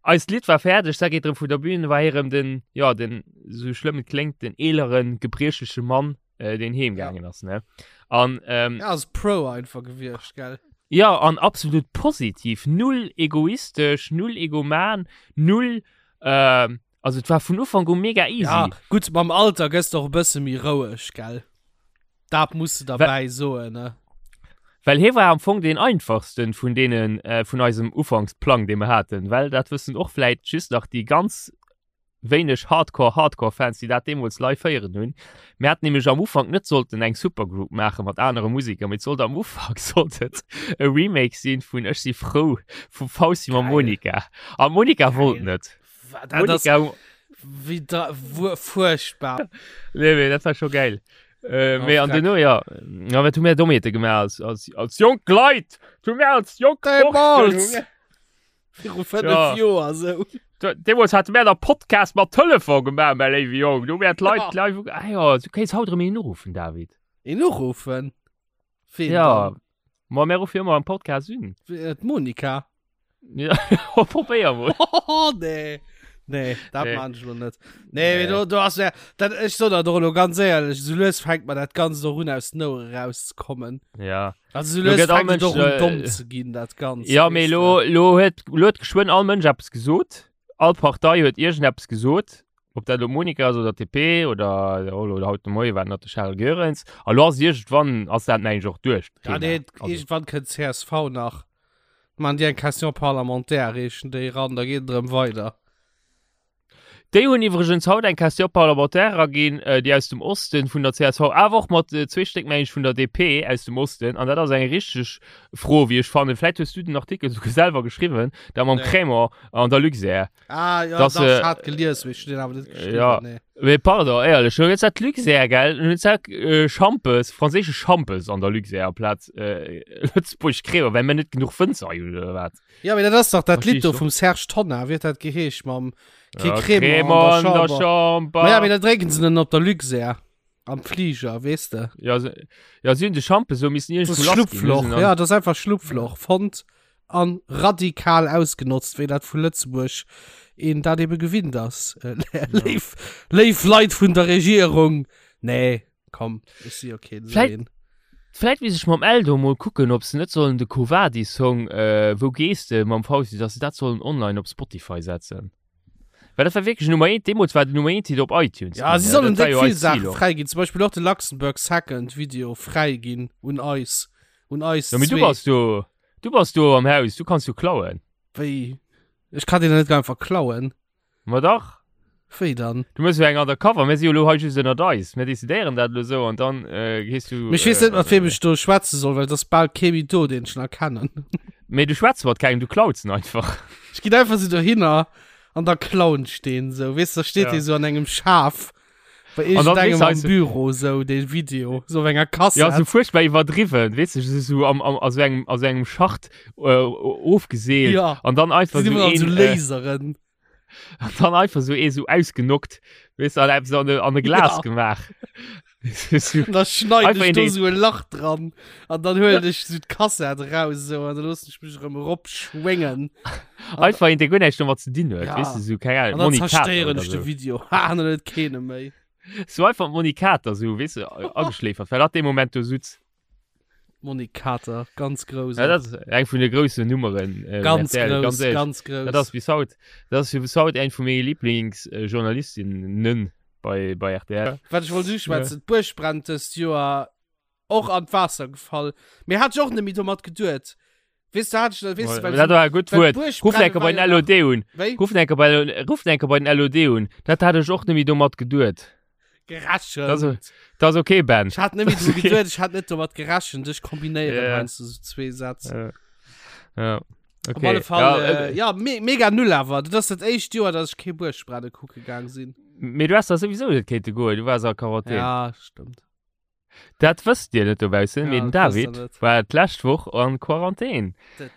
Speaker 2: Eist Lidd war fäerdeg, se geet erëm vun der Bühn, war hie erëm den, jo, den, esou schlëmm et kléngt, den eeleren, gebriechleche Mann, äh, deen heem gaangen ass ne an ähm,
Speaker 3: ja, ass pro einfach gewiescht gell
Speaker 2: ja an absolut positiv null egoistesch null egoman null äh, also et war vun Ufank u mega easy
Speaker 3: ja, gutt mam Alter gëss de och e bësse méi roueg gell dat muss de derbäi soen ne
Speaker 2: Well hie war am Fong deen einfachsten vun deenen äh, vun eisem Ufanksplang dee mer haten, well dat wëssen och vläit just nach déi ganz wéineg Hardcore Hardcore Fans déi dat deemools live héieren hunn. Mir haten nämlech am Ufank net sollten eng Supergroup maache mat anere Museker, mee et sollt am Ufank sollt et e Remake sinn vun Ech si frou vum Fausti mam
Speaker 3: Geil.
Speaker 2: Monica. A Monica wollt
Speaker 3: Geil.
Speaker 2: net.
Speaker 3: Wa- Dat ass
Speaker 2: Monica,
Speaker 3: wéi da wuer fuerchtbar.
Speaker 2: nee, mee dat war scho geil. Äh,
Speaker 3: Oh,
Speaker 2: mee an
Speaker 3: freck.
Speaker 2: duerno, ja, ja, wat hu mir Dommheete gemaach als, als, als jonk Leit? Hu mir als jonk Borschten, hu
Speaker 3: Deemools!
Speaker 2: mir-
Speaker 3: Viru 5
Speaker 2: Ja.
Speaker 3: Joer sou.
Speaker 2: Deemools hate mär der Podcast mat Telefon gemaach, mäi léiwe Jong. Do wär d'Leit
Speaker 3: Ja.
Speaker 2: live. Ah ja, du kéints haut erëm een uruffen, David.
Speaker 3: Een uruffen? Ween
Speaker 2: Ja.
Speaker 3: dann?
Speaker 2: Ma mär ruffe jo ëmmer am Podcast un.
Speaker 3: Äh, D'Monika.
Speaker 2: Ja, probéier mol.
Speaker 3: Oh, nee. Nee, dat
Speaker 2: Nee.
Speaker 3: maan ech lo net. Nee,
Speaker 2: Nee.
Speaker 3: do, do ass ja, dat, ech so dat och elo ganz éierlech, sou lues fänkt mer dat Ganzt och un aus den Ouere rauszekommen.
Speaker 2: Ja.
Speaker 3: Also sou
Speaker 2: Lo
Speaker 3: lues
Speaker 2: gëtt all
Speaker 3: fänkt et
Speaker 2: Mënsch,
Speaker 3: och un
Speaker 2: äh,
Speaker 3: domm ze ginn, dat Ganzt.
Speaker 2: Ja, mee
Speaker 3: weess
Speaker 2: lo,
Speaker 3: de.
Speaker 2: lo huet, lo huet geschwënn all Mënsch eppes gesot. All Partei huet iergendeppes gesot. Ob dat elo Monika ass oder d'DP oder, oder haut de Moie war et nach de Charel Goerens. A lo ass iergendwann ass dat mengen ech och duerch,
Speaker 3: Ja,
Speaker 2: d'Thema.
Speaker 3: nee,
Speaker 2: Also,
Speaker 3: iergendwann kënnt csv nach. Maan déi eng Question parlementaire, reechen déi eran, da geet et erëm weider.
Speaker 2: Déi hunn iwwregens haut eng Question parlementaire eraginn, déi aus dem Osten vun der csv, awer och mat zwee Stéck, meng ech, vun der DP aus dem Osten. An dat ass eng richteg Fro, wéi ech fannen. Vläit hues du den Artikel souguer selwer geschriwwen, dat mam
Speaker 3: Nee.
Speaker 2: Crémant an der Luxair.
Speaker 3: Ah, ja,
Speaker 2: Dass,
Speaker 3: dach,
Speaker 2: äh,
Speaker 3: ech hat gelies, mee ech hunn deen awer net geschriwwen,
Speaker 2: ja.
Speaker 3: nee.
Speaker 2: Mee pardon, éierlech, elo gëtt dat Luxair, gell? Elo gëtt dat äh, Schampes, franséische Schampes an der Luxair amplaz äh, Lëtzebuerg Crémant, well mir net genuch Wënzer hunn, oder wat?
Speaker 3: Ja, mee dat ass dach dat
Speaker 2: Versteh
Speaker 3: Lidd do
Speaker 2: ich
Speaker 3: vum Serge Tonnar, wéi huet dat geheescht mam Kee
Speaker 2: Ja,
Speaker 3: Crémant an der
Speaker 2: Crémant an der
Speaker 3: Chamber.
Speaker 2: Chamber.
Speaker 3: Ma ja, mee da drénken se den op der Luxair am Flieger, weess de.
Speaker 2: Ja, se, ja, si hunn de Schampes so missen
Speaker 3: Das
Speaker 2: iergendwou
Speaker 3: ist
Speaker 2: lass ginn.
Speaker 3: Schlupfloch,
Speaker 2: Hunn se
Speaker 3: ja, das ist einfach Schlupfloch. Fonnt an radikal ausgenotzt, wéi dat vu Lëtzebuerg een dat ebe gewinnt ass. Äh, léif, léif Leit vun der Regierung. Nee, komm, ech si jo keen esou
Speaker 2: Vläit-
Speaker 3: een.
Speaker 2: Vläit misst ech mam Eldo mol kucken, ob se net sollen de Quo Vadis Song äh, Wou gees de mam Fausti, dass se dat sollen online op Spotify setzen. Well dat war wierklech Nummer 1, deemools war den Nummer 1 Hit op iTunes.
Speaker 3: Ja,
Speaker 2: ginn,
Speaker 3: si
Speaker 2: ne?
Speaker 3: sollen
Speaker 2: Dat war
Speaker 3: déck
Speaker 2: jo
Speaker 3: vill
Speaker 2: eist Ziel
Speaker 3: Saache
Speaker 2: och.
Speaker 3: fräi ginn, zum Beispill och de Luxembourg Second Video fräi ginn un eis, un eis
Speaker 2: Ja, mee du
Speaker 3: zwee.
Speaker 2: bass do, du bass do am Haus, du kanns jo klauen.
Speaker 3: Wéi? Ech kann deen net einfach klauen.
Speaker 2: Ma dach.
Speaker 3: Wéi dann?
Speaker 2: Du mëss jo eng Undercover, mir si jo elo hei just ënnert eis. Mir decidéieren dat elo esou an dann äh, gees du.
Speaker 3: Mee ech weess net, mat weem ech do schwätze soll, well et ass bal kee méi do, deen ech nach kennen.
Speaker 2: Mee du schwätz mat kengem, du klauz en einfach.
Speaker 3: Ech ginn einfach sou dohinner an da klauen ech deen sou. Weess de, da steet
Speaker 2: Ja.
Speaker 3: dee sou an engem Schaf bei
Speaker 2: An dann
Speaker 3: iergendengem
Speaker 2: weess
Speaker 3: am
Speaker 2: du,
Speaker 3: Büro sou, dee Video, sou op enger
Speaker 2: Ja, sou
Speaker 3: Kassett.
Speaker 2: fuerchtbar iwwerdriwwen, weess du, sou, sou am, am, a sou engem, a sou engem Schacht äh, ofgeseelt.
Speaker 3: Ja.
Speaker 2: An dann einfach
Speaker 3: Sinn
Speaker 2: sou
Speaker 3: iwwerall
Speaker 2: een,
Speaker 3: sou
Speaker 2: äh,
Speaker 3: Laseren.
Speaker 2: An dann einfach so ee so ausgenockt, weess du, an eppes an e, an e Glas
Speaker 3: Ja.
Speaker 2: gemaach. So-
Speaker 3: Und da schneid
Speaker 2: Einfach
Speaker 3: ich
Speaker 2: in
Speaker 3: do
Speaker 2: den-
Speaker 3: so ein Lach dran. Und dann hol ich so die Kassett raus so, und dann lass ich mich erëm eropschwingen.
Speaker 2: Einfach een, dee guer näischt domat ze dinn huet,
Speaker 3: Ja.
Speaker 2: weess du, so, keng Ahnung,
Speaker 3: Und dann
Speaker 2: Moni Kater
Speaker 3: zerstéieren
Speaker 2: oder
Speaker 3: ich de
Speaker 2: so.
Speaker 3: Video. Ha, und dann huet keene méi.
Speaker 2: So einfach d'Moni Kater, so, weess du, ageschläfert, well dat dee Moment do sutz.
Speaker 3: Monique Kater, ganz grouss.
Speaker 2: Ja, dat ass eng vun de groussen Nummeren. Äh,
Speaker 3: ganz
Speaker 2: RTL,
Speaker 3: grouss,
Speaker 2: ganz ehrlich.
Speaker 3: ganz grouss.
Speaker 2: Dat ass bis haut, dat ass fir bis haut eng vu menge Lieblingsjournalistinnen bei, bei RTL.
Speaker 3: Wat ech wollt uschwätzen, d'Buerg brennt dëst Joer och an d'Waasser gefall. Mee hat ech och net méi domat geduet. Weess du, hat ech, weess du, well
Speaker 2: Dat war e gutt
Speaker 3: well
Speaker 2: Wuert.
Speaker 3: d'Buerg
Speaker 2: Ruff
Speaker 3: brenne
Speaker 2: enker bei
Speaker 3: war
Speaker 2: den
Speaker 3: jo
Speaker 2: LOD un.
Speaker 3: Wéi?
Speaker 2: Ruff enker bei, ruff enker bei den LOD un. Dat hat ech och net méi domat geduet.
Speaker 3: Gerechent.
Speaker 2: Dat ass, dat ass okay, Ben.
Speaker 3: Ech hat net méi dru geduet, ech hat net domat gerechent. Ech kombinéieren
Speaker 2: Ja.
Speaker 3: heiansdo sou zwee Sätz.
Speaker 2: Ja. Ja. Okay.
Speaker 3: Op alle Fall,
Speaker 2: Ja,
Speaker 3: äh, ja, me mega null awer. Dat ass dat éischt Joer, dass ech kee Buergbrennen kucke gaang sinn.
Speaker 2: Mee du hast da sowieso net kéinte goen, du waars a Quarantän.
Speaker 3: Ja, stëmmt.
Speaker 2: Dat wësst Dir net dobaussen,
Speaker 3: Ja,
Speaker 2: mee den
Speaker 3: dat wësst
Speaker 2: David
Speaker 3: der net.
Speaker 2: war d'lescht Woch an Quarantän,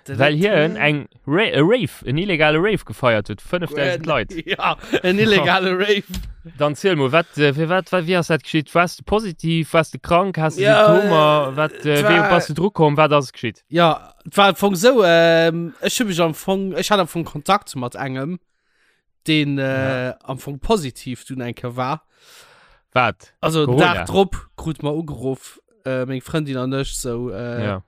Speaker 2: well hien eng Ra e Rave, en illegale Rave gefeiert huet, 5000 Leit.
Speaker 3: Ja, en illegale Rave.
Speaker 2: Dann ziel mol, wat, äh, fir wat, wat, wéi ass dat geschitt? Waars de positiv, waars de krank, has de
Speaker 3: Ja,
Speaker 2: Symptomer, wat, äh,
Speaker 3: et
Speaker 2: wéi
Speaker 3: war-
Speaker 2: bass du dru komm, wat ass geschitt?
Speaker 3: Ja, et war am Fong sou, ähm, ech hu mech am Fong, ech hat am Fong Kontakt mat engem, deen äh, am Fong positiv dunn eng Kéier war.
Speaker 2: Wat?
Speaker 3: Also den
Speaker 2: Corona.
Speaker 3: Dag drop krut mer ugeruff, äh, meng Frëndin an ech sou, äh,
Speaker 2: Ja.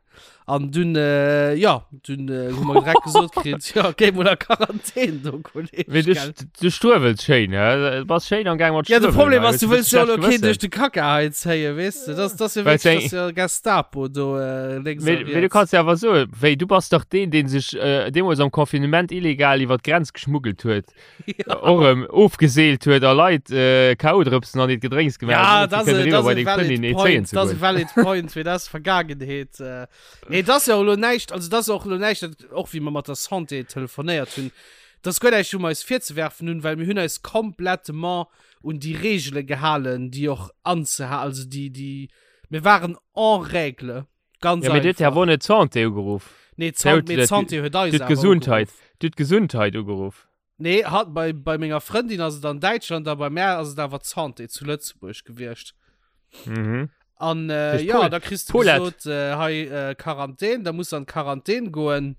Speaker 3: An dunn, äh, ja, dunn äh, hu mer direkt gesot kritt, ja, géi mol a Quarantän do, Kolleg.
Speaker 2: Mee du,
Speaker 3: gell.
Speaker 2: du struewels schéin, hä? Du bass schéin am Gaang mat
Speaker 3: Ja, de
Speaker 2: struewelen,
Speaker 3: Problem
Speaker 2: hei.
Speaker 3: ass, du
Speaker 2: Hues
Speaker 3: wëlls jo
Speaker 2: schlecht
Speaker 3: lo keen
Speaker 2: Gewëssen.
Speaker 3: duerch de Kacka hei zéien, weess de? Das, das ja
Speaker 2: Well
Speaker 3: wirklich,
Speaker 2: eng-
Speaker 3: das ja Gestapo do äh, lénks a
Speaker 2: Mee, mee du
Speaker 3: riets.
Speaker 2: kanns ja awer soen, wéi du bass dach deen, deen sech äh, deemools am Confinement illegal iwwer d'Grenz geschmuggelt huet,
Speaker 3: Ja.
Speaker 2: och erëm ofgeseelt huet a Leit äh, K.O.-Drëpsen an hiert Gedrénks gemaach
Speaker 3: Ja,
Speaker 2: huet, fir
Speaker 3: das
Speaker 2: kënnen
Speaker 3: ist,
Speaker 2: eriwwer
Speaker 3: das
Speaker 2: bei
Speaker 3: ist
Speaker 2: deng
Speaker 3: valid
Speaker 2: Frëndin ee
Speaker 3: point,
Speaker 2: zéien ze
Speaker 3: das ist
Speaker 2: goen.
Speaker 3: valid point, mee das ist Vergangenheet. Äh. Nee, das ist ja och lo näischt, also das ist och lo näischt, dat, och wéi mer mat der Santé telefonéiert hunn, das ist guer näischt, um eis virzewerfen hunn, well mir hunn eis komplettement un déi Regele gehalen, déi och anzeha, also déi, déi, mir waren en règle, ganz
Speaker 2: Ja, mee du huet ja
Speaker 3: einfach.
Speaker 2: wohl net d'Santé ugeruff.
Speaker 3: Nee,
Speaker 2: Du
Speaker 3: d'San-
Speaker 2: huet
Speaker 3: mee
Speaker 2: dat-
Speaker 3: d'Santé huet eis
Speaker 2: Du huet
Speaker 3: awer
Speaker 2: d'Gesundheit,
Speaker 3: ugeruff.
Speaker 2: du huet d'Gesundheit ugeruff.
Speaker 3: Nee, hat bei, bei menger Frëndin ass et an Däitschland, a bei mär ass et awer d'Santé zu Lëtzebuerg gewiescht.
Speaker 2: Mhm.
Speaker 3: An äh,
Speaker 2: Duerch
Speaker 3: ja,
Speaker 2: Pol
Speaker 3: da kriss du
Speaker 2: Paulette.
Speaker 3: gesot, äh, hei äh, Quarantän, da muss an Quarantän goen.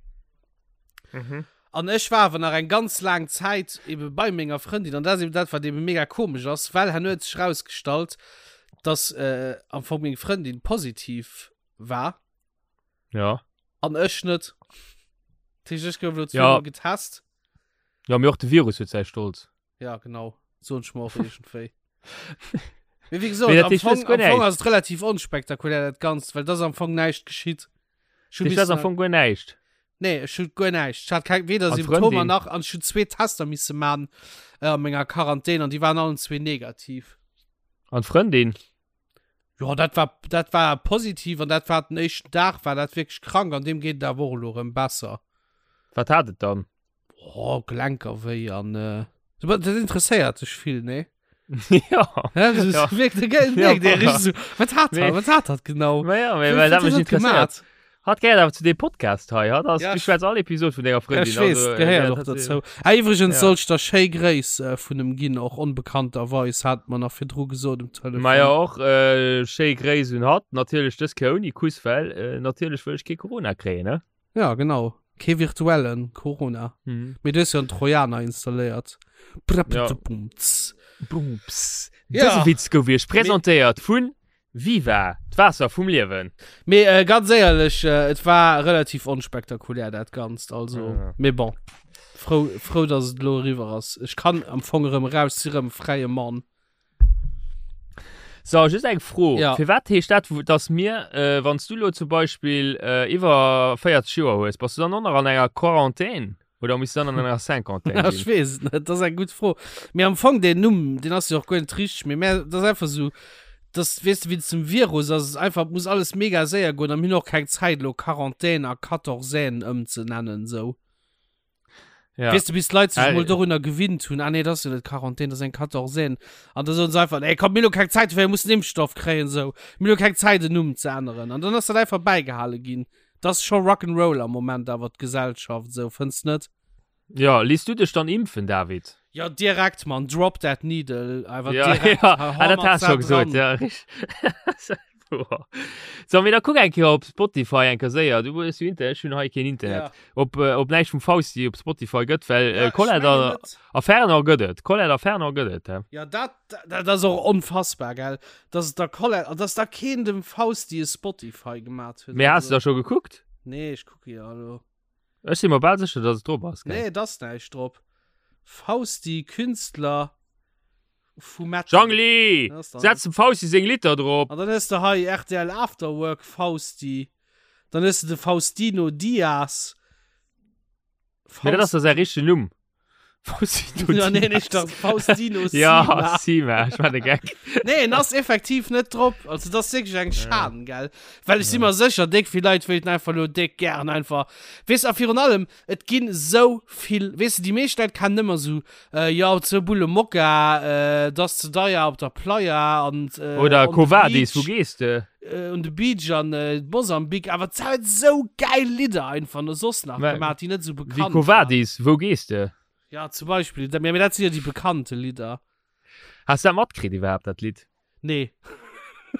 Speaker 2: Mhm.
Speaker 3: An ech war awer nach eng ganz laang Zäit ebe bei menger Frëndin, an dat ass eben dat, wat eben mega komesch ass, well herno huet sech rausgestallt, dass äh, am Fong meng Frëndin positiv war
Speaker 2: Ja.
Speaker 3: an ech net. Dat heescht, ech gouf elo
Speaker 2: Ja.
Speaker 3: zweimal getest.
Speaker 2: Ja, mee och de Virus huet säi Stolz.
Speaker 3: Ja, genau. So ein Schmorf irgendwie. Mee wéi gesot,
Speaker 2: Mee dat
Speaker 3: am
Speaker 2: heescht, du
Speaker 3: Fong,
Speaker 2: hues guer
Speaker 3: am Fong
Speaker 2: näischt.
Speaker 3: ass et relativ onspektakulär dat Ganzt, well das am Fong näischt geschitt. Ech hu
Speaker 2: Dat ass am
Speaker 3: missen-
Speaker 2: Fong guer näischt.
Speaker 3: Nee, ech hu guer näischt. Ech hat keng, weder
Speaker 2: An
Speaker 3: Symptomer
Speaker 2: d'Frëndin?
Speaker 3: nach, an ech hu zwee Tester misse man äh, an menger Quarantän an déi waren allen zwee negativ.
Speaker 2: An d'Frëndin?
Speaker 3: Ja, dat war, dat war positiv an dat war den éischten Dag, war dat wierklech krank an deem geet et awer och elo erëm besser.
Speaker 2: Wat hat et dann?
Speaker 3: Oh, Gelenker wéi an äh, dat interesséiert dech vill, nee?
Speaker 2: ja.
Speaker 3: Ja, das
Speaker 2: Ja.
Speaker 3: wirkt, ja.
Speaker 2: Ja,
Speaker 3: der richtig so, was hat er?
Speaker 2: Nee.
Speaker 3: Was hat dat genau?
Speaker 2: Ma ja,
Speaker 3: Wéi-
Speaker 2: well
Speaker 3: wéi
Speaker 2: dat mech
Speaker 3: huet dat
Speaker 2: interesséiert.
Speaker 3: gemaat?
Speaker 2: Hat gehéiert awer zu deem Podcast hei, hat ass,
Speaker 3: Ja,
Speaker 2: du
Speaker 3: ich-
Speaker 2: schwätz all Episode vun denger
Speaker 3: Ja,
Speaker 2: Frëndin.
Speaker 3: ich weess,
Speaker 2: also, äh,
Speaker 3: gehéiert
Speaker 2: ja,
Speaker 3: och
Speaker 2: dat-
Speaker 3: dozou. Ah, iwwregens
Speaker 2: Ja.
Speaker 3: soll ich der schéi Gréiss äh, vun em ginn, och onbekannterweis, hat mer nach virdru gesot um Telefon.
Speaker 2: Ma ja och äh, schéi Gréiss un hatt, natierlech dës Kéier ouni Kuss, well äh, natierlech wëll ech kee Corona kréien, ne?
Speaker 3: Ja, genau. Kee virtuellen Corona.
Speaker 2: Mhm.
Speaker 3: Mee du hues jo en Trojaner installéiert.
Speaker 2: Ja.
Speaker 3: Bumps.
Speaker 2: Bumps.
Speaker 3: Ja.
Speaker 2: Dëse Witz gouf iech presentéiert vun Viva, d'Waasser vum Liewen.
Speaker 3: Mee äh, ganz éierlech, äh, et war relativ onspektakulär dat Ganzt, also
Speaker 2: Ja.
Speaker 3: mee bon. Frou, frou, dass et elo eriwwer ass. Ech kann am Fong erëm raus, si rëm fräie Mann.
Speaker 2: So, just eng Fro.
Speaker 3: Ja.
Speaker 2: Firwat heescht dat, wou- dass mir, äh, wann s du lo zum Beispill äh, iwwer 40 Joer hues, bass du dann och nach an enger Quarantän? Oder misst dann an enger Cinquantaine
Speaker 3: Ja, ech
Speaker 2: ginn?
Speaker 3: weess et net, dat ass eng gutt Fro. Mee am Fong deen Numm, deen ass jo och guer net richteg, mee mä dat ass einfach esou, dass, weess de, wéinst dem Virus ass et einfach, et muss alles mega séier goen a mir hunn och keng Zäit elo Quarantaine a Quatorzaine ëmzenennen esou.
Speaker 2: Ja.
Speaker 3: Weess de, bis d'Leit sech
Speaker 2: Ah,
Speaker 3: mol dorunner gewinnt hunn, ah nee, dat ass jo net Quarantaine, dat ass eng Quatorzaine. An da soen se einfach, ey komm, mir hunn elo keng Zäit dofir, mir mussen Impfstoff kréien esou, mir hunn elo keng Zäit en Numm ze änneren. An dann ass dat einfach bäigehale ginn. Das scho Rock'n'Roll am Moment awer d'Gesellschaft esou, fënns net?
Speaker 2: Ja, lies du dech dann impfen, David?
Speaker 3: Ja, direkt, Mann, drop that needle, einfach
Speaker 2: ja,
Speaker 3: direkt.
Speaker 2: Ja, ah, dat hast du gesot, ja, richtig. So, mee da kuck eng Kéier op Spotify eng Kéier séier. Du hues jo Internet, ech hunn hei keen Internet.
Speaker 3: Ja.
Speaker 2: Ob, äh, ob näischt vum Fausti op Spotify gëtt, well
Speaker 3: Ja,
Speaker 2: äh, Colette
Speaker 3: ech mengen
Speaker 2: a,
Speaker 3: net.
Speaker 2: a Fernand gëtt et. Colette a Fernand gëtt et, hä?
Speaker 3: Ja, dat, dat ass och onfassbar, gell? Dass et da Colette, an dass da keen dem Fausti e Spotify gemat huet.
Speaker 2: Mee has du da scho gekuckt?
Speaker 3: Nee, ech kucke jo elo.
Speaker 2: Ech si mer bal sécher, dass et drop ass, gell?
Speaker 3: Nee, et ass näischt drop. Fausti, Künstler vu Metal.
Speaker 2: Jangli!
Speaker 3: Dat ass dann-
Speaker 2: Setz dem Fausti seng Litter drop!
Speaker 3: An dann hues de hei RTL Afterwork Fausti. Dann hues de de Faustino Diaz.
Speaker 2: Mee dat ass da säi richtegen Numm. Faustino
Speaker 3: Ja, nee,
Speaker 2: Diaz.
Speaker 3: nicht das Faustino
Speaker 2: Ja,
Speaker 3: Sima.
Speaker 2: Sima, ich war de Gag.
Speaker 3: Nee, en ass effektiv net drop. Also das ist wirklich eng Schan, gell? Well ich si mer sécher, déck vill Leit wéilten einfach lo déck gären einfach. Weess a virun allem, et ginn sou vill, weess de, déi meescht Leit kennen ëmmer sou, äh, ja, zwou Bulle Mokka, äh, das ze deier op der Playa an äh,
Speaker 2: Oder
Speaker 3: on the
Speaker 2: Quo Vadis,
Speaker 3: Beach.
Speaker 2: wo gehst de?
Speaker 3: Äh, on the Beach an äh, Mosambik, awer et huet sou geil Lidder einfach no soss nach
Speaker 2: Mä-
Speaker 3: gemaach, déi net sou
Speaker 2: Wie
Speaker 3: bekannt
Speaker 2: Quo
Speaker 3: waren.
Speaker 2: Vadis, wou gehst de?
Speaker 3: Ja, zum Beispiel, dat, mä dat sinn jo déi bekannte Lidder.
Speaker 2: Has du dat matkritt iwwerhaapt, dat Lidd?
Speaker 3: Nee.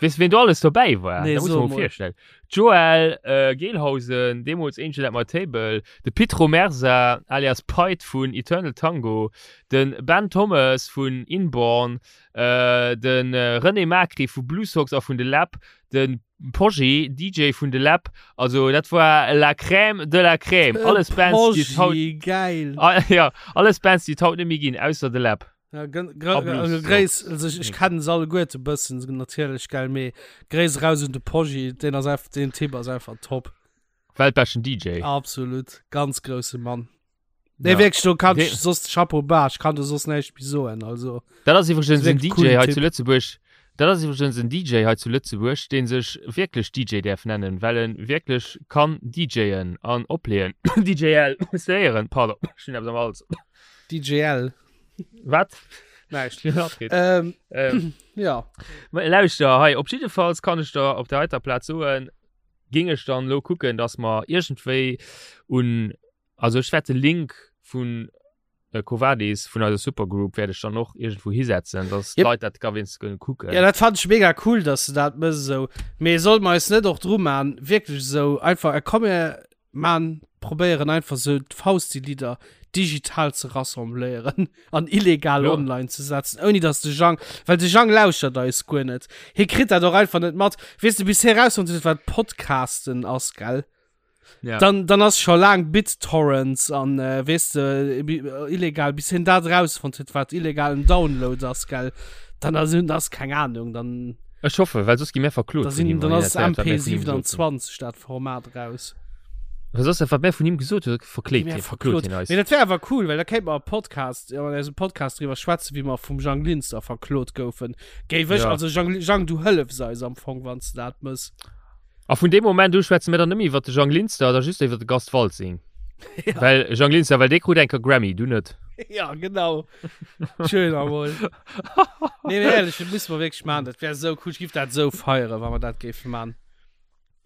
Speaker 2: Weess ween do alles dobäi war?
Speaker 3: Nee,
Speaker 2: Dat muss
Speaker 3: so
Speaker 2: man
Speaker 3: mol.
Speaker 2: virstellen. Joel äh, Gelhausen, deemools Angel at my Table, de Pit Romersa alias Pite vun Eternal Tango, den Ben Thomas vun Inborn, äh, den äh, René Macri vu Blue Sox a vun The Lab, den Poggi, DJ vun The Lab. Also dat war la crème de la crème. Alles Bands, déi et haut,
Speaker 3: Poggi, geil.
Speaker 2: Ah, ja, alles Bands, déi et haut net méi ginn, ausser The Lab.
Speaker 3: Ja, also Gréiss, also ich, ich kennen se alleguerte bëssen, natierlech, gell, mee Gréiss raus un de Poggi, deen ass einfach, deen Typ ass einfach top.
Speaker 2: Weltbeschten DJ.
Speaker 3: Absolut, ganz grousse Mann. Nee,
Speaker 2: Ja.
Speaker 3: wierklech, do kann
Speaker 2: Dee-
Speaker 3: ich soss Chapeau bas, ich kann do soss näischt méi soen, also.
Speaker 2: Dat ass iwwregens en
Speaker 3: Wierklech
Speaker 2: DJ
Speaker 3: coolen
Speaker 2: hei
Speaker 3: Typ.
Speaker 2: zu Lëtzebuerg. Dat ass iwwregens en DJ hei zu Lëtzebuerg, dee sech wierklech DJ däerf nennen, well en wierklech kann DJen an opleeën. DJL, séieren, pardon, ech hunn eppes am Hals.
Speaker 3: DJL.
Speaker 2: Wat?
Speaker 3: Näischt.
Speaker 2: Ähm,
Speaker 3: Ähm,
Speaker 2: ähm,
Speaker 3: ja.
Speaker 2: Ma Lauschter, hei, op jiddefalls kann ech der op der heiter Plaz soen, ging ech dann lo kucken, dass mer iergendwéi un, also ech wäert de Link vun äh, Covadis, vun eiser Supergroup, wäert ech dann och iergendwou hisetzen, dass
Speaker 3: Yep.
Speaker 2: d'Leit dat ka wéinst kënnen kucken.
Speaker 3: Ja, dat fand ich mega cool, dass du dat mëss esou. Mee soll mer eis net och dru man, wierklech esou einfach, äh, komm mir man probéieren einfach sou d'Fausti-Lidder digital ze rassembléieren an illegal
Speaker 2: Ja.
Speaker 3: online ze setzen, ouni dass de Jang, well de Jang lauschtert eis guer net. Hie kritt dat och einfach net mat. Weess de, bis hie rausfonnt huet, wat Podcasten ass, gell?
Speaker 2: Ja.
Speaker 3: Dann, dann ass scho laang BitTorrents an, äh, weess de, illegal, bis hien dat rausfonnt huet, wat illegalen Download ass, gell? Dann ass, ass keng Ahnung, dann.
Speaker 2: Ech hoffe, well soss gi mir verklot
Speaker 3: Da
Speaker 2: vun
Speaker 3: sinn,
Speaker 2: him,
Speaker 3: dann
Speaker 2: wann hien
Speaker 3: ass
Speaker 2: dat héiert, wat mir vun him gesot hunn.
Speaker 3: MP27 dat Format raus.
Speaker 2: Well soss dat, wat mir vun him gesot hunn, verkléit
Speaker 3: Mir
Speaker 2: hien, verklot
Speaker 3: verklot.
Speaker 2: hien eis.
Speaker 3: Mee dat wär awer cool, well da kéint mer e Podcast, an eisem Podcast driwwer schwätzen, wéi mer vum Jang Linster verklot goufen. Géif ech,
Speaker 2: Ja.
Speaker 3: also Jang, Jang, du hëllefs eis am Fong, wann s de dat mëss.
Speaker 2: A vun deem Moment u schwätze mir dann net méi iwwer de Jang Linster, da just iwwer de Gast Waltzing.
Speaker 3: Ja.
Speaker 2: Well Jang Linster, well dee krut enker Grammy, du net.
Speaker 3: Ja, genau. Schön amol. Nee, mee ehrlich, dat musse mer wierklech maachen. Dat wär sou cool. Ech giff dat sou feieren, wa mer dat géife maachen.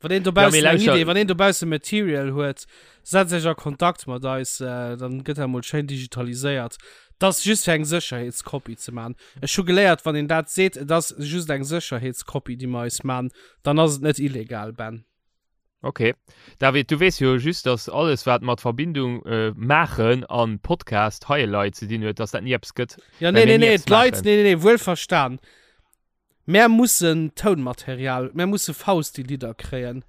Speaker 3: Wann een
Speaker 2: Ja, mee
Speaker 3: dobaussen eng
Speaker 2: lauschter.
Speaker 3: Idee, wann een dobaussen Material huet, setzt iech a Kontakt mat eis, äh, dann gëtt dat mol schéin digitaliséiert. Dat ass just fir eng Sécherheetskopie ze maachen. Ech hu geléiert, wann een dat seet, et ass just eng Sécherheetskopie, déi mer eis maachen, dann ass et net illegal, Ben.
Speaker 2: Ok. David, du weess jo just, dass alles, wat mat Verbindung äh, maachen an Podcast hei Leit ze dinn huet, dass dat ni eppes gëtt.
Speaker 3: Ja,
Speaker 2: Well
Speaker 3: nee,
Speaker 2: mir
Speaker 3: nee,
Speaker 2: ni
Speaker 3: nee,
Speaker 2: eppes
Speaker 3: d'Leit,
Speaker 2: maachen.
Speaker 3: nee, nee, nee, wuel verstan. Mär mussen Tounmaterial, mär musse Fausti-Lidder kréien.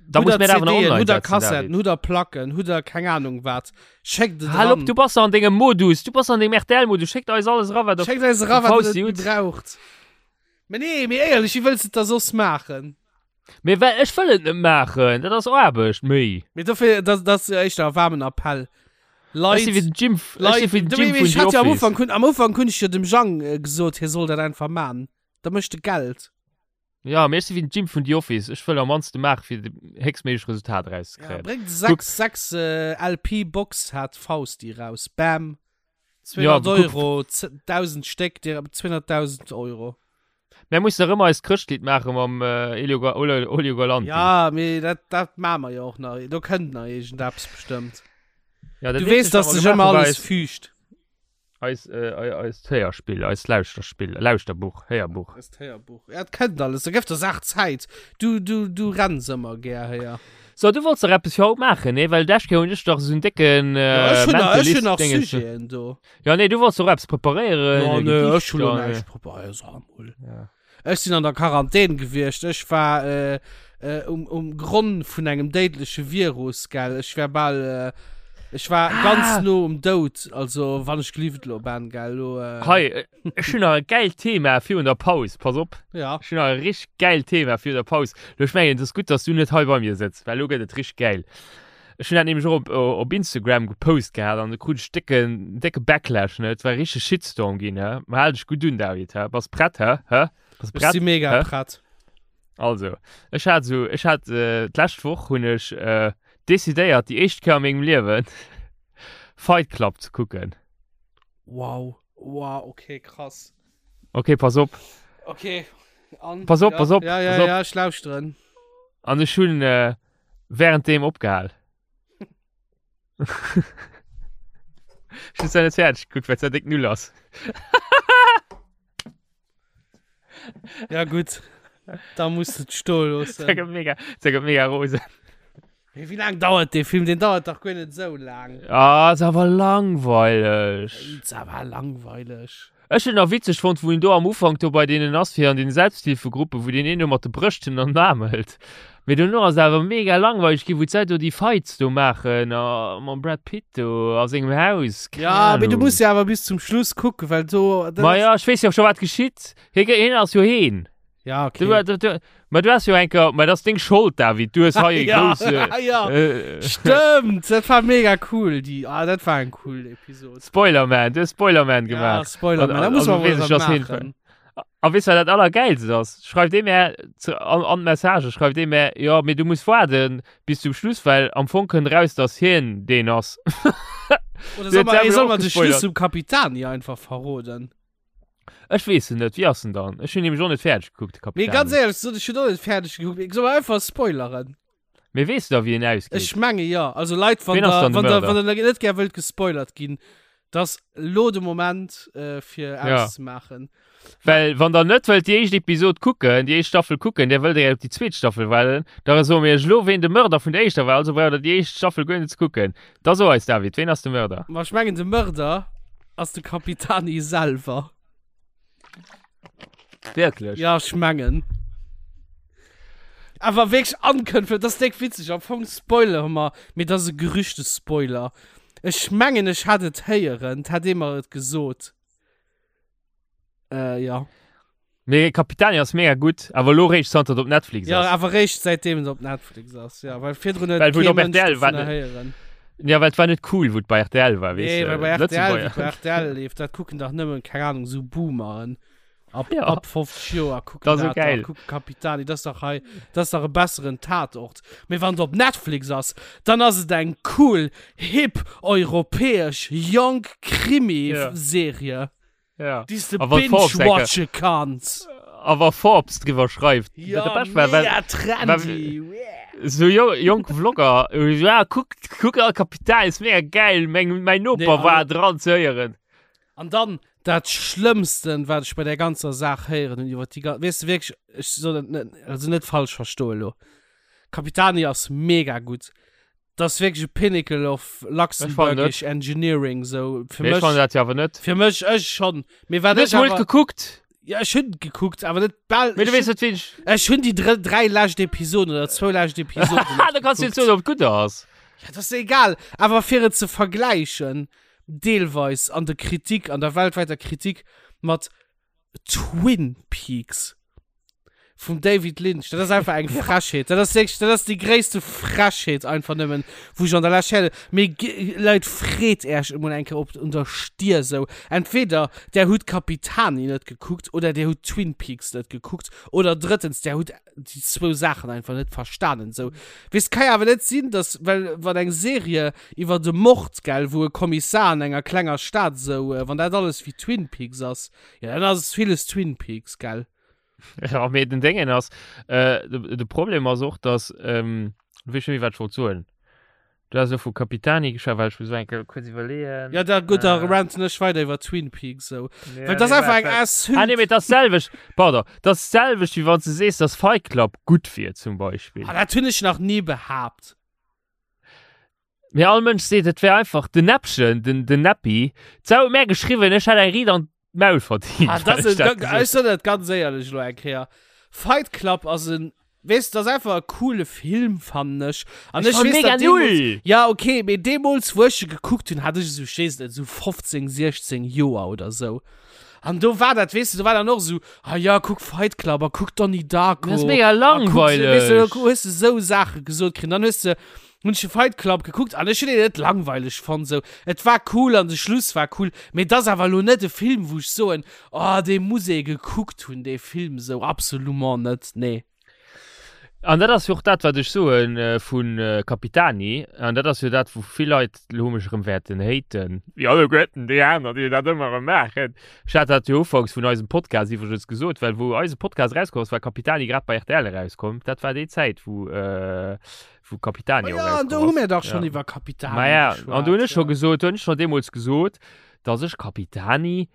Speaker 2: Da
Speaker 3: Hutt
Speaker 2: muss
Speaker 3: der
Speaker 2: mir dat awer nach
Speaker 3: CDen,
Speaker 2: online
Speaker 3: hutt der
Speaker 2: setzen,
Speaker 3: Kassetten,
Speaker 2: David.
Speaker 3: hutt der Placken, hutt der keng Ahnung wat. Schéckt et
Speaker 2: Hal op,
Speaker 3: eran.
Speaker 2: du bass an dengem Modus, du bass an dengem RTL-Modus, schéckt eis alles era, wat der
Speaker 3: Schéckt eis era, wat der
Speaker 2: Fausti
Speaker 3: net
Speaker 2: hutt.
Speaker 3: méi braucht. Mee nee, mee éierlech, wéi wëlls de et da soss maachen?
Speaker 2: Mee well ech wëll et net maachen, dat ass Aarbecht, méi.
Speaker 3: Mee dofir, dat, dat ass jo éischter e waarmen Appell. Leit,
Speaker 2: Ech si wéi den Jim, ech
Speaker 3: Leit,
Speaker 2: si wéi den
Speaker 3: Du,
Speaker 2: Jim
Speaker 3: mee
Speaker 2: vun
Speaker 3: ech
Speaker 2: The
Speaker 3: hat jo am
Speaker 2: Office.
Speaker 3: Ufank, hun, am Ufank hunn ech jo dem Jang äh, gesot, hie soll dat einfach man. Da mécht de Geld.
Speaker 2: Ja, mee ech si wéi den Jim vun The Office. Ech wëll am mannste maache fir de héchstméiglech Resultat
Speaker 3: Ja,
Speaker 2: erauszekréien.
Speaker 3: bréngt
Speaker 2: Kuck.
Speaker 3: 6, 6 äh, LP Box-Set Fausti raus. Bam.
Speaker 2: Ja,
Speaker 3: 200
Speaker 2: kuck.
Speaker 3: Euro, 1000 Stéck, dir 200.000 Euro.
Speaker 2: Mär mussen nach ëmmer eist Chrëschtlidd maache mam äh, Elio, Ga Olio, Olio Galanti.
Speaker 3: Ja, mee dat, dat maache mer jo och nach. Do kënnt nach iergendeppes bestëmmt.
Speaker 2: Ja, dat
Speaker 3: Du weess,
Speaker 2: eenzegt,
Speaker 3: dass
Speaker 2: wat mer
Speaker 3: sech ëmmer
Speaker 2: gemaach hu, war
Speaker 3: alles
Speaker 2: eis,
Speaker 3: fügt.
Speaker 2: eis, äh, ei- eist Héierspill, eist Lauschterspill, Lauschterbuch, Héierbuch.
Speaker 3: Eist Héierbuch. Ja, et kënnt alles. Da gëff der Saach Zäit. Du, du, du renns ëmmer gär héier.
Speaker 2: So, du wollts dach eppes fir haut maachen, nee? Well d'lescht Kéier hunn ech dach esou en décken
Speaker 3: Ja,
Speaker 2: äh,
Speaker 3: ech hunn nach, ech hunn nach
Speaker 2: Mentalist-Dingens.
Speaker 3: Sujeten do.
Speaker 2: Ja, nee, du wollts doch eppes preparéieren.
Speaker 3: Ja,
Speaker 2: e
Speaker 3: nee,
Speaker 2: Gedicht
Speaker 3: ech hunn lo
Speaker 2: an,
Speaker 3: näischt preparéiert, sag mol.
Speaker 2: Ja.
Speaker 3: Ech sinn an der Quarantän gewiescht. Ech war äh, äh, um, um Gronn vun engem déidleche Virus, gell. Ech war bal, äh, ech war
Speaker 2: Ah.
Speaker 3: ganz no um Doud. Also, wann ech gelift lo ben, gell. Lo, äh,
Speaker 2: Hei, äh, ech hunn nach e gäilt Thema virun der Paus. Pass op.
Speaker 3: Ja.
Speaker 2: Ech hunn nach e richteg gäilt Thema virun der Paus. Lo, ech mengen, et ass gutt, dass du net hei bei mir sëtz, well lo gëtt et richteg gäil. Ech hunn dat nämlech och op, op Instagram gepost gehat an do krut ech décken, décke Backlash, ne. Et war e richtege Shitstorm ginn, hä. Ma hal dech gutt un, David, hä. Bass prett, hä? Hä? Bass
Speaker 3: Ech
Speaker 2: prett?
Speaker 3: si mega
Speaker 2: Hä?
Speaker 3: prett.
Speaker 2: Also, ech hat esou, ech hat äh, d'lescht Woch hunn ech äh, decidéiert, déi éischt Kéier a mengem Liewen Fight Club ze kucken.
Speaker 3: Wow. Wow, okay, krass.
Speaker 2: Okay, pass op.
Speaker 3: Okay. An,
Speaker 2: Pass op,
Speaker 3: ja,
Speaker 2: pass op,
Speaker 3: Ja, ja,
Speaker 2: pass op.
Speaker 3: ja, ech lauschteren.
Speaker 2: An ech hunn äh, währenddem opgehal. Ech hunn zwar net fäerdeg gekuckt, well et zwar déck null ass.
Speaker 3: Ja, gutt. Da muss du et stoe loossen.
Speaker 2: Dat gëtt mega, dat gëtt mega rosen.
Speaker 3: Mee wéi laang dauert dee Film? Deen dauert dach guer net esou laang.
Speaker 2: Ah, ass awer langweileg.
Speaker 3: Ass awer langweileg.
Speaker 2: Ech hunn nach witzeg fonnt, wou en do am Ufank do bei deenen ass, fir an den Selbsthilfegruppen, wou deen een do mat de Brëschten an den Aarm hëlt. Mee dono ass et awer mega langweileg ginn, wou d'Leit do déi Fights do maachen a mam Brad Pitt do a sengem Haus, keng
Speaker 3: Ja, mee du
Speaker 2: Ahnung.
Speaker 3: muss jo awer bis zum Schluss kucken, well do. dat
Speaker 2: Ma
Speaker 3: ass-
Speaker 2: ja, ech weess jo scho wat geschitt. Hie, hien ass jo heen.
Speaker 3: Ja, okay.
Speaker 2: Du, du, du, ma du hast jo enker, ma das ist deng Schold, David. Du hast hei
Speaker 3: ja,
Speaker 2: große,
Speaker 3: ja.
Speaker 2: äh,
Speaker 3: Stimmt, das war mega cool. Die, ah, das war ein cool Episode.
Speaker 2: Spoilerman, du hast Spoilerman
Speaker 3: Ja,
Speaker 2: gemacht.
Speaker 3: Spoilerman,
Speaker 2: An-
Speaker 3: da muss
Speaker 2: also
Speaker 3: man
Speaker 2: weess
Speaker 3: wohl
Speaker 2: ich, dass
Speaker 3: machen.
Speaker 2: hin- A weess wat dat allergeilst ass? Schreift ee mir zu, an, an d'Message, schreift ee mir, ja, mee du muss waarden bis zum Schluss, well am Fong kënnt raus, dass hien deen ass.
Speaker 3: Oder
Speaker 2: Du
Speaker 3: soll
Speaker 2: huet
Speaker 3: man, ey,
Speaker 2: selber
Speaker 3: soll
Speaker 2: och
Speaker 3: man den
Speaker 2: gespoilert.
Speaker 3: Schluss zum Capitani einfach verroden?
Speaker 2: Ech weess en net, wéi ass en dann? Ech hunn nämlech och net fäerdeg gekuckt, de
Speaker 3: Mee
Speaker 2: Capitani.
Speaker 3: ganz éierlech gesot, ech hunn och net fäerdeg gekuckt. Mee soll mer einfach spoileren?
Speaker 2: Mee weess du da, wéi en ausgeet?
Speaker 3: Ech menge jo. Also Leit, wann
Speaker 2: Ween ass
Speaker 3: der,
Speaker 2: dann de
Speaker 3: wann der,
Speaker 2: Mörder?
Speaker 3: wann der net gär wëllt gespoilert ginn, dass lo de Moment äh, fir
Speaker 2: Ja.
Speaker 3: auszemaachen.
Speaker 2: Well wann der net wëllt déi éischt Episod kucken, déi éischt Staffel kucken, der wëllt der op déi zweet Staffel waarden, da soe mir iech lo, ween de Mörder vun der éischter war, also braucht der déi éischt Staffel guer net ze kucken. Da so eis, David, ween ass de Mörder?
Speaker 3: Ma ech mengen de Mörder ass de Capitani selwer.
Speaker 2: Wierklech?
Speaker 3: Ja, ech mengen. Awer wierklech ankënnfen, dat ass déck witzeg. Am Fong spoilere mer, mee dat ass e Gerüchtespoiler. Ech mengen, ech hat et héieren, 't hat ee mer et gesot. Äh, ja.
Speaker 2: Mee Capitani ass mega gutt, awer elo réischt zanter et op Netflix
Speaker 3: Ja,
Speaker 2: ass.
Speaker 3: awer réischt säitdeem et op Netflix ass, ja. Well virdrun huet
Speaker 2: Well wou et
Speaker 3: kee
Speaker 2: op
Speaker 3: Mënsch
Speaker 2: RTL war,
Speaker 3: dovunner
Speaker 2: ne?
Speaker 3: héieren.
Speaker 2: Ja, well et war net cool, wou et bei RTL war, weess
Speaker 3: Nee,
Speaker 2: de.
Speaker 3: well bei RTL,
Speaker 2: Lëtzebuerger.
Speaker 3: wéi bei RTL leeft, dat kucken dach nëmmen, keng Ahnung, sou Boomeren. Ab,
Speaker 2: Ja.
Speaker 3: ab 50 Joer kucken
Speaker 2: Dat ass sou
Speaker 3: dat dach,
Speaker 2: geil.
Speaker 3: kucken Capitani, dat ass dach hei, dat ass dach e besseren Tatort. Mee wann et op Netflix ass, dann ass et eng cool, hip, europäesch, jonk
Speaker 2: Ja.
Speaker 3: Krimi-Serie.
Speaker 2: Ja.
Speaker 3: Déi s de
Speaker 2: A wann Forbes enke-
Speaker 3: binge-watche kanns.
Speaker 2: A wa Forbes driwwer schreift.
Speaker 3: Ja,
Speaker 2: Dat Bescht war, well-
Speaker 3: mega trendy. Yeah.
Speaker 2: So jo, jonk Vlogger, äh, ja, kuck, kuck al Kapital, ist mega geil, mein, mein Noper
Speaker 3: Nee, also-
Speaker 2: war dran ze héieren.
Speaker 3: An dann dat Schlëmmsten, wat ech bei der ganzer Saach héieren hunn, iwwer déi ga- weess de wierklech, ech soll dat net, also net falsch verstoen elo. Capitani ass mega gutt. Dat ass wierklech e Pinnacle of Luxembourgish Engineering, sou fir
Speaker 2: Mee ech
Speaker 3: mech.
Speaker 2: fannen dat jo awer net.
Speaker 3: Fir mech, ech schonn. Mee wat
Speaker 2: Du hues
Speaker 3: ech
Speaker 2: mol
Speaker 3: awer,
Speaker 2: gekuckt.
Speaker 3: ja, ech hunn gekuckt, awer net bal.
Speaker 2: Mee du
Speaker 3: ech
Speaker 2: weess
Speaker 3: hunn,
Speaker 2: net, wien ech.
Speaker 3: ech hunn déi dr dräi lescht Episoden oder zwou lescht Episoden
Speaker 2: Ha, da kanns du
Speaker 3: net
Speaker 2: net soen, ob et gutt ass.
Speaker 3: Ja, dat ass egal. Awer fir et ze vergläichen, deelweis an der Kritik, an der weltwäiter Kritik mat Twin Peaks. Vum David Lynch, dat ass einfach eng Frechheet. Dat ass wierklech, dat ass déi gréisste Frechheet einfach nëmmen, wou ech an der Lescht héieren. Mee Leit, freet Äech emol eng Kéier op un der Stier esou. Entweder där hutt Capitani net gekuckt oder där hutt Twin Peaks net gekuckt oder drëttens, där hutt déi zwou Saachen einfach net verstanen esou. Weess, ka jo awer net sinn, dass, well wann eng Serie iwwer e Mord, gell, wou e Kommissar an enger klenger Stad esou, wann dat alles wéi Twin Peaks ass, jo dann ass villes Twin Peaks, gell.
Speaker 2: Ja, mee den Déngen ass, äh, de, de Problem ass och, dass, ähm, weess schon méi, wat ech wollt soen. Du has elo vu Capitani geschwat, well ech muss eng Kéier kuerz iwwerleeën.
Speaker 3: Ja, da gutt, da äh, ranten ech weider iwwer Twin Peaks sou. Ja, Well das nee, einfach eng
Speaker 2: Asshole. Ah, nee, mee das selwecht, pardon, das selwecht, wéi wann du sees, dass Fight Club gutt wier, zum Beispill.
Speaker 3: Ah, dat hunn ech nach ni behaapt.
Speaker 2: Mee all Mënsch seet, et wär einfach den Näppchen, den, den Näppi. D'Sau huet mär geschriwwen, ech hätt eng Riit an d'Maul verdient.
Speaker 3: Ah, das ist, dat ech soen dat ganz éierlech elo eng Kéier. Fight Club ass en, weess, dat ass einfach e coole Film, fannen ech.
Speaker 2: An ech, ech weess, mega
Speaker 3: null. Ja, okay, mee deemools, wou ech e gekuckt hunn, hat ech esou, ech weess net, esou 15, 16 Joer oder esou. An do war dat, weess du, do war dann och esou, ah ja, kuck Fight Club a kuck Donnie Darko.
Speaker 2: Dat ass mega langweileg.
Speaker 3: Weess du, hues du esou Saache gesot kritt. Dann hues du Hun ech de Fight Club gekuckt an ech hun en net langweileg fonnt sou. Et war cool an de Schluss war cool, mee et ass awer elo net e Film wou ech soen, oh dee muss ee gekuckt hun dee Film sou, absolument net, nee.
Speaker 2: An dat ass jo och dat wat ech soen vu Capitani, an dat ass jo dat wou vill Leit elo mech erëm wäerten haten, wéi alleguerten déi aner déi dat ëmmer erëm maachen. Ech hat dat jo ufanks vun eisem Podcast iwwregens gesot, well wou eise Podcast erauskomm ass, war Capitani grad bei rtl erauskomm. Dat war déi Zäit wou wou Capitani
Speaker 3: oh, ja, an do hu mir dach schon ja. iwwer Capitani
Speaker 2: Ma ja, an du hunn ech schon gesot, hunn ech schon deemools gesot, dass ech Capitani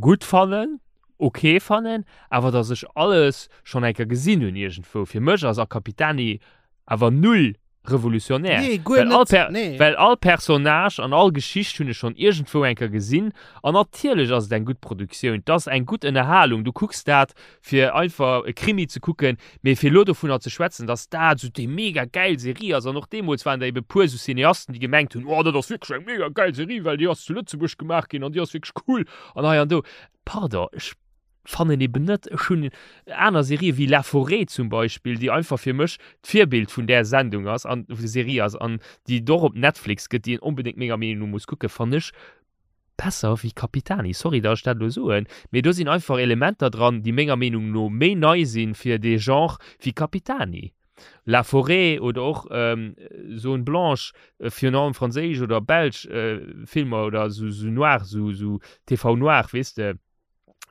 Speaker 2: gutt fannen, okay fannen, awer dass ech alles schon eng Kéier gesinn hunn iergendwou. Fir mech ass a Capitani awer null revolutionär.
Speaker 3: Nee, guer
Speaker 2: well all
Speaker 3: net,
Speaker 2: Per
Speaker 3: nee.
Speaker 2: well all Personnage an all Geschicht hunn ech schon iergendwou eng Kéier gesinn. An natierlech ass et eng gutt Produktioun, 't ass eng gutt Ënnerhalung, du kucks dat fir einfach e Krimi ze kucken, mee fir elo dovunner ze schwätzen, dass dat esou déi mega gäil Serie ass, an och deemools waren der ebe puer esou Cineasten, déi gemengt hunn, oh dat ass wierklech eng mega gäil Serie, well déi ass zu Lëtzebuerg gemaach ginn an déi ass wierklech cool an hei an do. Pardon, ech fannen eben net, ech hunn aner Serië wéi La Forêt zum Beispill, déi einfach fir mech d'Virbild vun där Sendung ass an Serie ass an déi et och op Netflix gëtt, déi een onbedéngt menger Meenung no muss kucken, fannen ech besser wéi Capitani, sorry datt ech dat elo soen, mee do sinn einfach Elementer dran, déi menger Meenung no méi nei sinn fir dee Genre wéi Capitani. La Forêt oder och Zone Blanche, virun allem franséisch oder belsch Filmer oder sou noir, sou TV noir, weess de.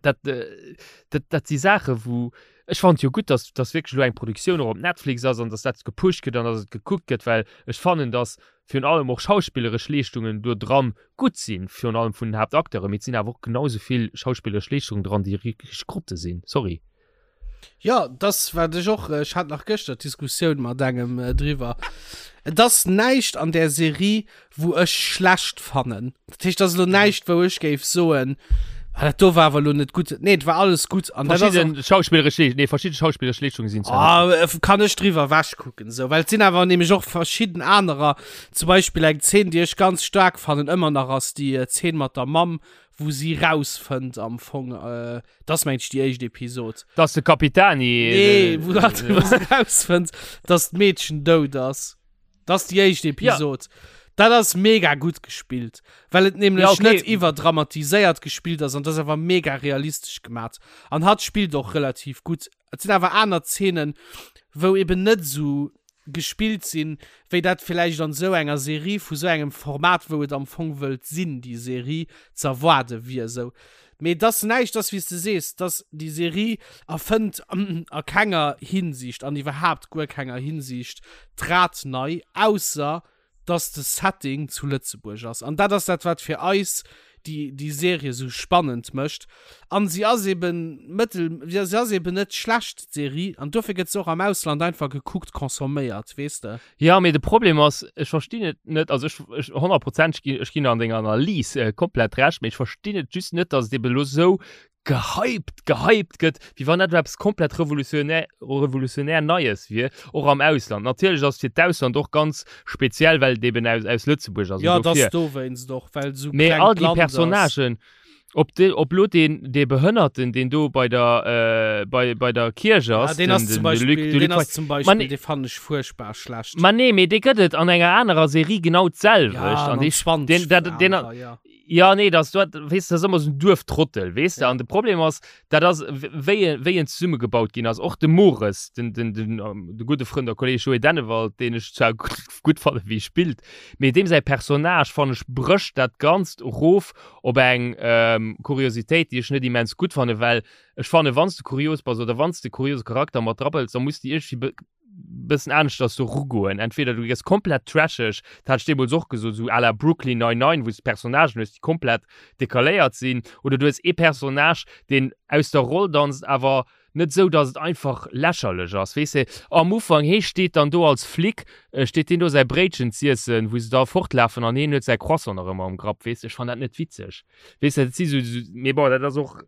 Speaker 2: Dat, dat, dat si Saache wou ech fannen et jo gutt, datt datt wierklech elo eng Produktioun och op Netflix ass an datt dat gepusht gëtt an datt et gekuckt gëtt, well ech fannen, datt virun allem och schauspilleresch Leeschtungen do dran gutt sinn, virun allem vun den Haaptacteuren, mee et sinn awer och genau esou vill schauspilleresch Leeschtungen dran, déi richteg Grotte sinn, sorry.
Speaker 3: Jo, dass wat ech och, ech hat nach gëschter d'Diskussioun mat engem driwwer. Et ass näischt an där Serie, wou ech schlecht fannen. Dat heescht, et ass elo näischt, wou ech géif soen, ah, dat do war awer elo net gutt. Nee, et war alles gutt.
Speaker 2: An dat ass och. Verschidden schauspilleresch Leesch-, nee, verschidde schauspilleresch Leeschtungen sinn
Speaker 3: zwar net gutt. Ah, kann ech driwwer ewechkucken, esou. Well et sinn awer nämlech och verschidden anerer, zum Beispill eng Zeen, déi ech ganz staark fannen, ëmmer nach, ass déi Zeen mat der Mamm, wou si rausfënnt am Fong, Dat ass mengt ech déi éischt Episod.
Speaker 2: Dass de Capitani.
Speaker 3: Nee, wou dat wou se rausfënnt, dass d'Meedchen dout ass. Dat ass déi éischt Episod. Ja. Dat ass mega gutt gespillt, well et nämlech ja, okay. net iwwerdramatiséiert gespillt ass an dat ass awer mega realistesch gemat. An hatt spillt och relativ gutt. Et sinn awer aner Zeenen, wou eben net esou gespillt sinn, wéi dat villäicht an esou enger Serie vu sou engem Format, wou et am Fong wëllt sinn, déi Serie, ze erwaarde wier. Esou. Mee et ass näischt, ass wéi s de sees, dass déi Serie erfënnt a kenger Hinsicht an iwwerhaapt guer kenger Hinsicht d'Rad nei, ausser dass de Setting zu Lëtzebuerg ass. An dat ass dat, wat fir eis déi, déi Serie esou spannend mécht. An si ass eben mëttel, si ass eben net schlecht, d'Serie, an dofir gëtt se och am Ausland einfach gekuckt, consomméiert, weess de.
Speaker 2: Jo, mee de Problem ass, ech verstinn et net, also ech, ech honnertprozenteg ginn, ech ginn an denger Analys komplett Recht, mee ech verstinn et just net, dass et eben elo esou gehypt, gehypt gëtt, wéi wann dat elo eppes komplett revolutionär, revolutionär Neies wier, och am Ausland. Natierlech ass et fir d'Ausland och ganz speziell, well et eben aus, aus Lëtzebuerg ass.
Speaker 3: Jo, et ass dowéinst och, well et esou
Speaker 2: klengt Land ass. Mee all déi Personnagen. Ob de, ob lo deen, dee Behënnerten, deen do bei der, äh, bei, bei der Kierch
Speaker 3: Ja,
Speaker 2: ass,
Speaker 3: deen ass
Speaker 2: den,
Speaker 3: zum
Speaker 2: den, de Luc,
Speaker 3: Beispiel,
Speaker 2: de
Speaker 3: deen
Speaker 2: Luc
Speaker 3: ass
Speaker 2: Fay.
Speaker 3: zum
Speaker 2: Ma
Speaker 3: Beispiel,
Speaker 2: nee,
Speaker 3: dee fannen ech furchtbar schlecht.
Speaker 2: ma nee, mee dee gëtt et an enger anerer Serie genau d'selwecht.
Speaker 3: Ja,
Speaker 2: An
Speaker 3: an
Speaker 2: dee,
Speaker 3: 20
Speaker 2: deen, dat, deen,
Speaker 3: anerer, ja.
Speaker 2: Ja, nee, das, du, weess, das ass ëmmer so en Duerftrottel, weess de?
Speaker 3: Ja.
Speaker 2: An de Problem ass, dat ass, wéi, wéi en zesummegebaut ginn ass. Och de Mores, den, den, den, de gudde Frënd a Kolleg Joé Dennewald, deen ech zwar gutt, gutt fanne wéi e spillt, mee deem säi Personnage, fannen ech, brécht dat Ganzt erof op eng ähm, Kuriositéit, déi ech net immens gutt fanne, well ech fanne, wann s de kurios bass oder wann s de kuriose Charakter mat drabëlls, da muss de iergendwéi bëssen aneschters do rugoen. Entweder du gëss komplett trasheg, dat hat ech deemools och gesot, esou à la Brooklyn Nine-Nine, wou s de Personnagen hues, déi komplett decaléiert sinn, oder du hues ee Personnage, deen aus der Roll danzt, awer net esou, datt et einfach lächerlech ass, weess de. Am Ufank, hee steet dann do als Flic, steet deen do säi Bréitchen z'iessen, wou se da fortlafen an hien huet säi Croissant nach ëmmer am Grapp, weess de. Ech fann dat net witzeg, weess de. Dat si sou, mee bon, dat ass och.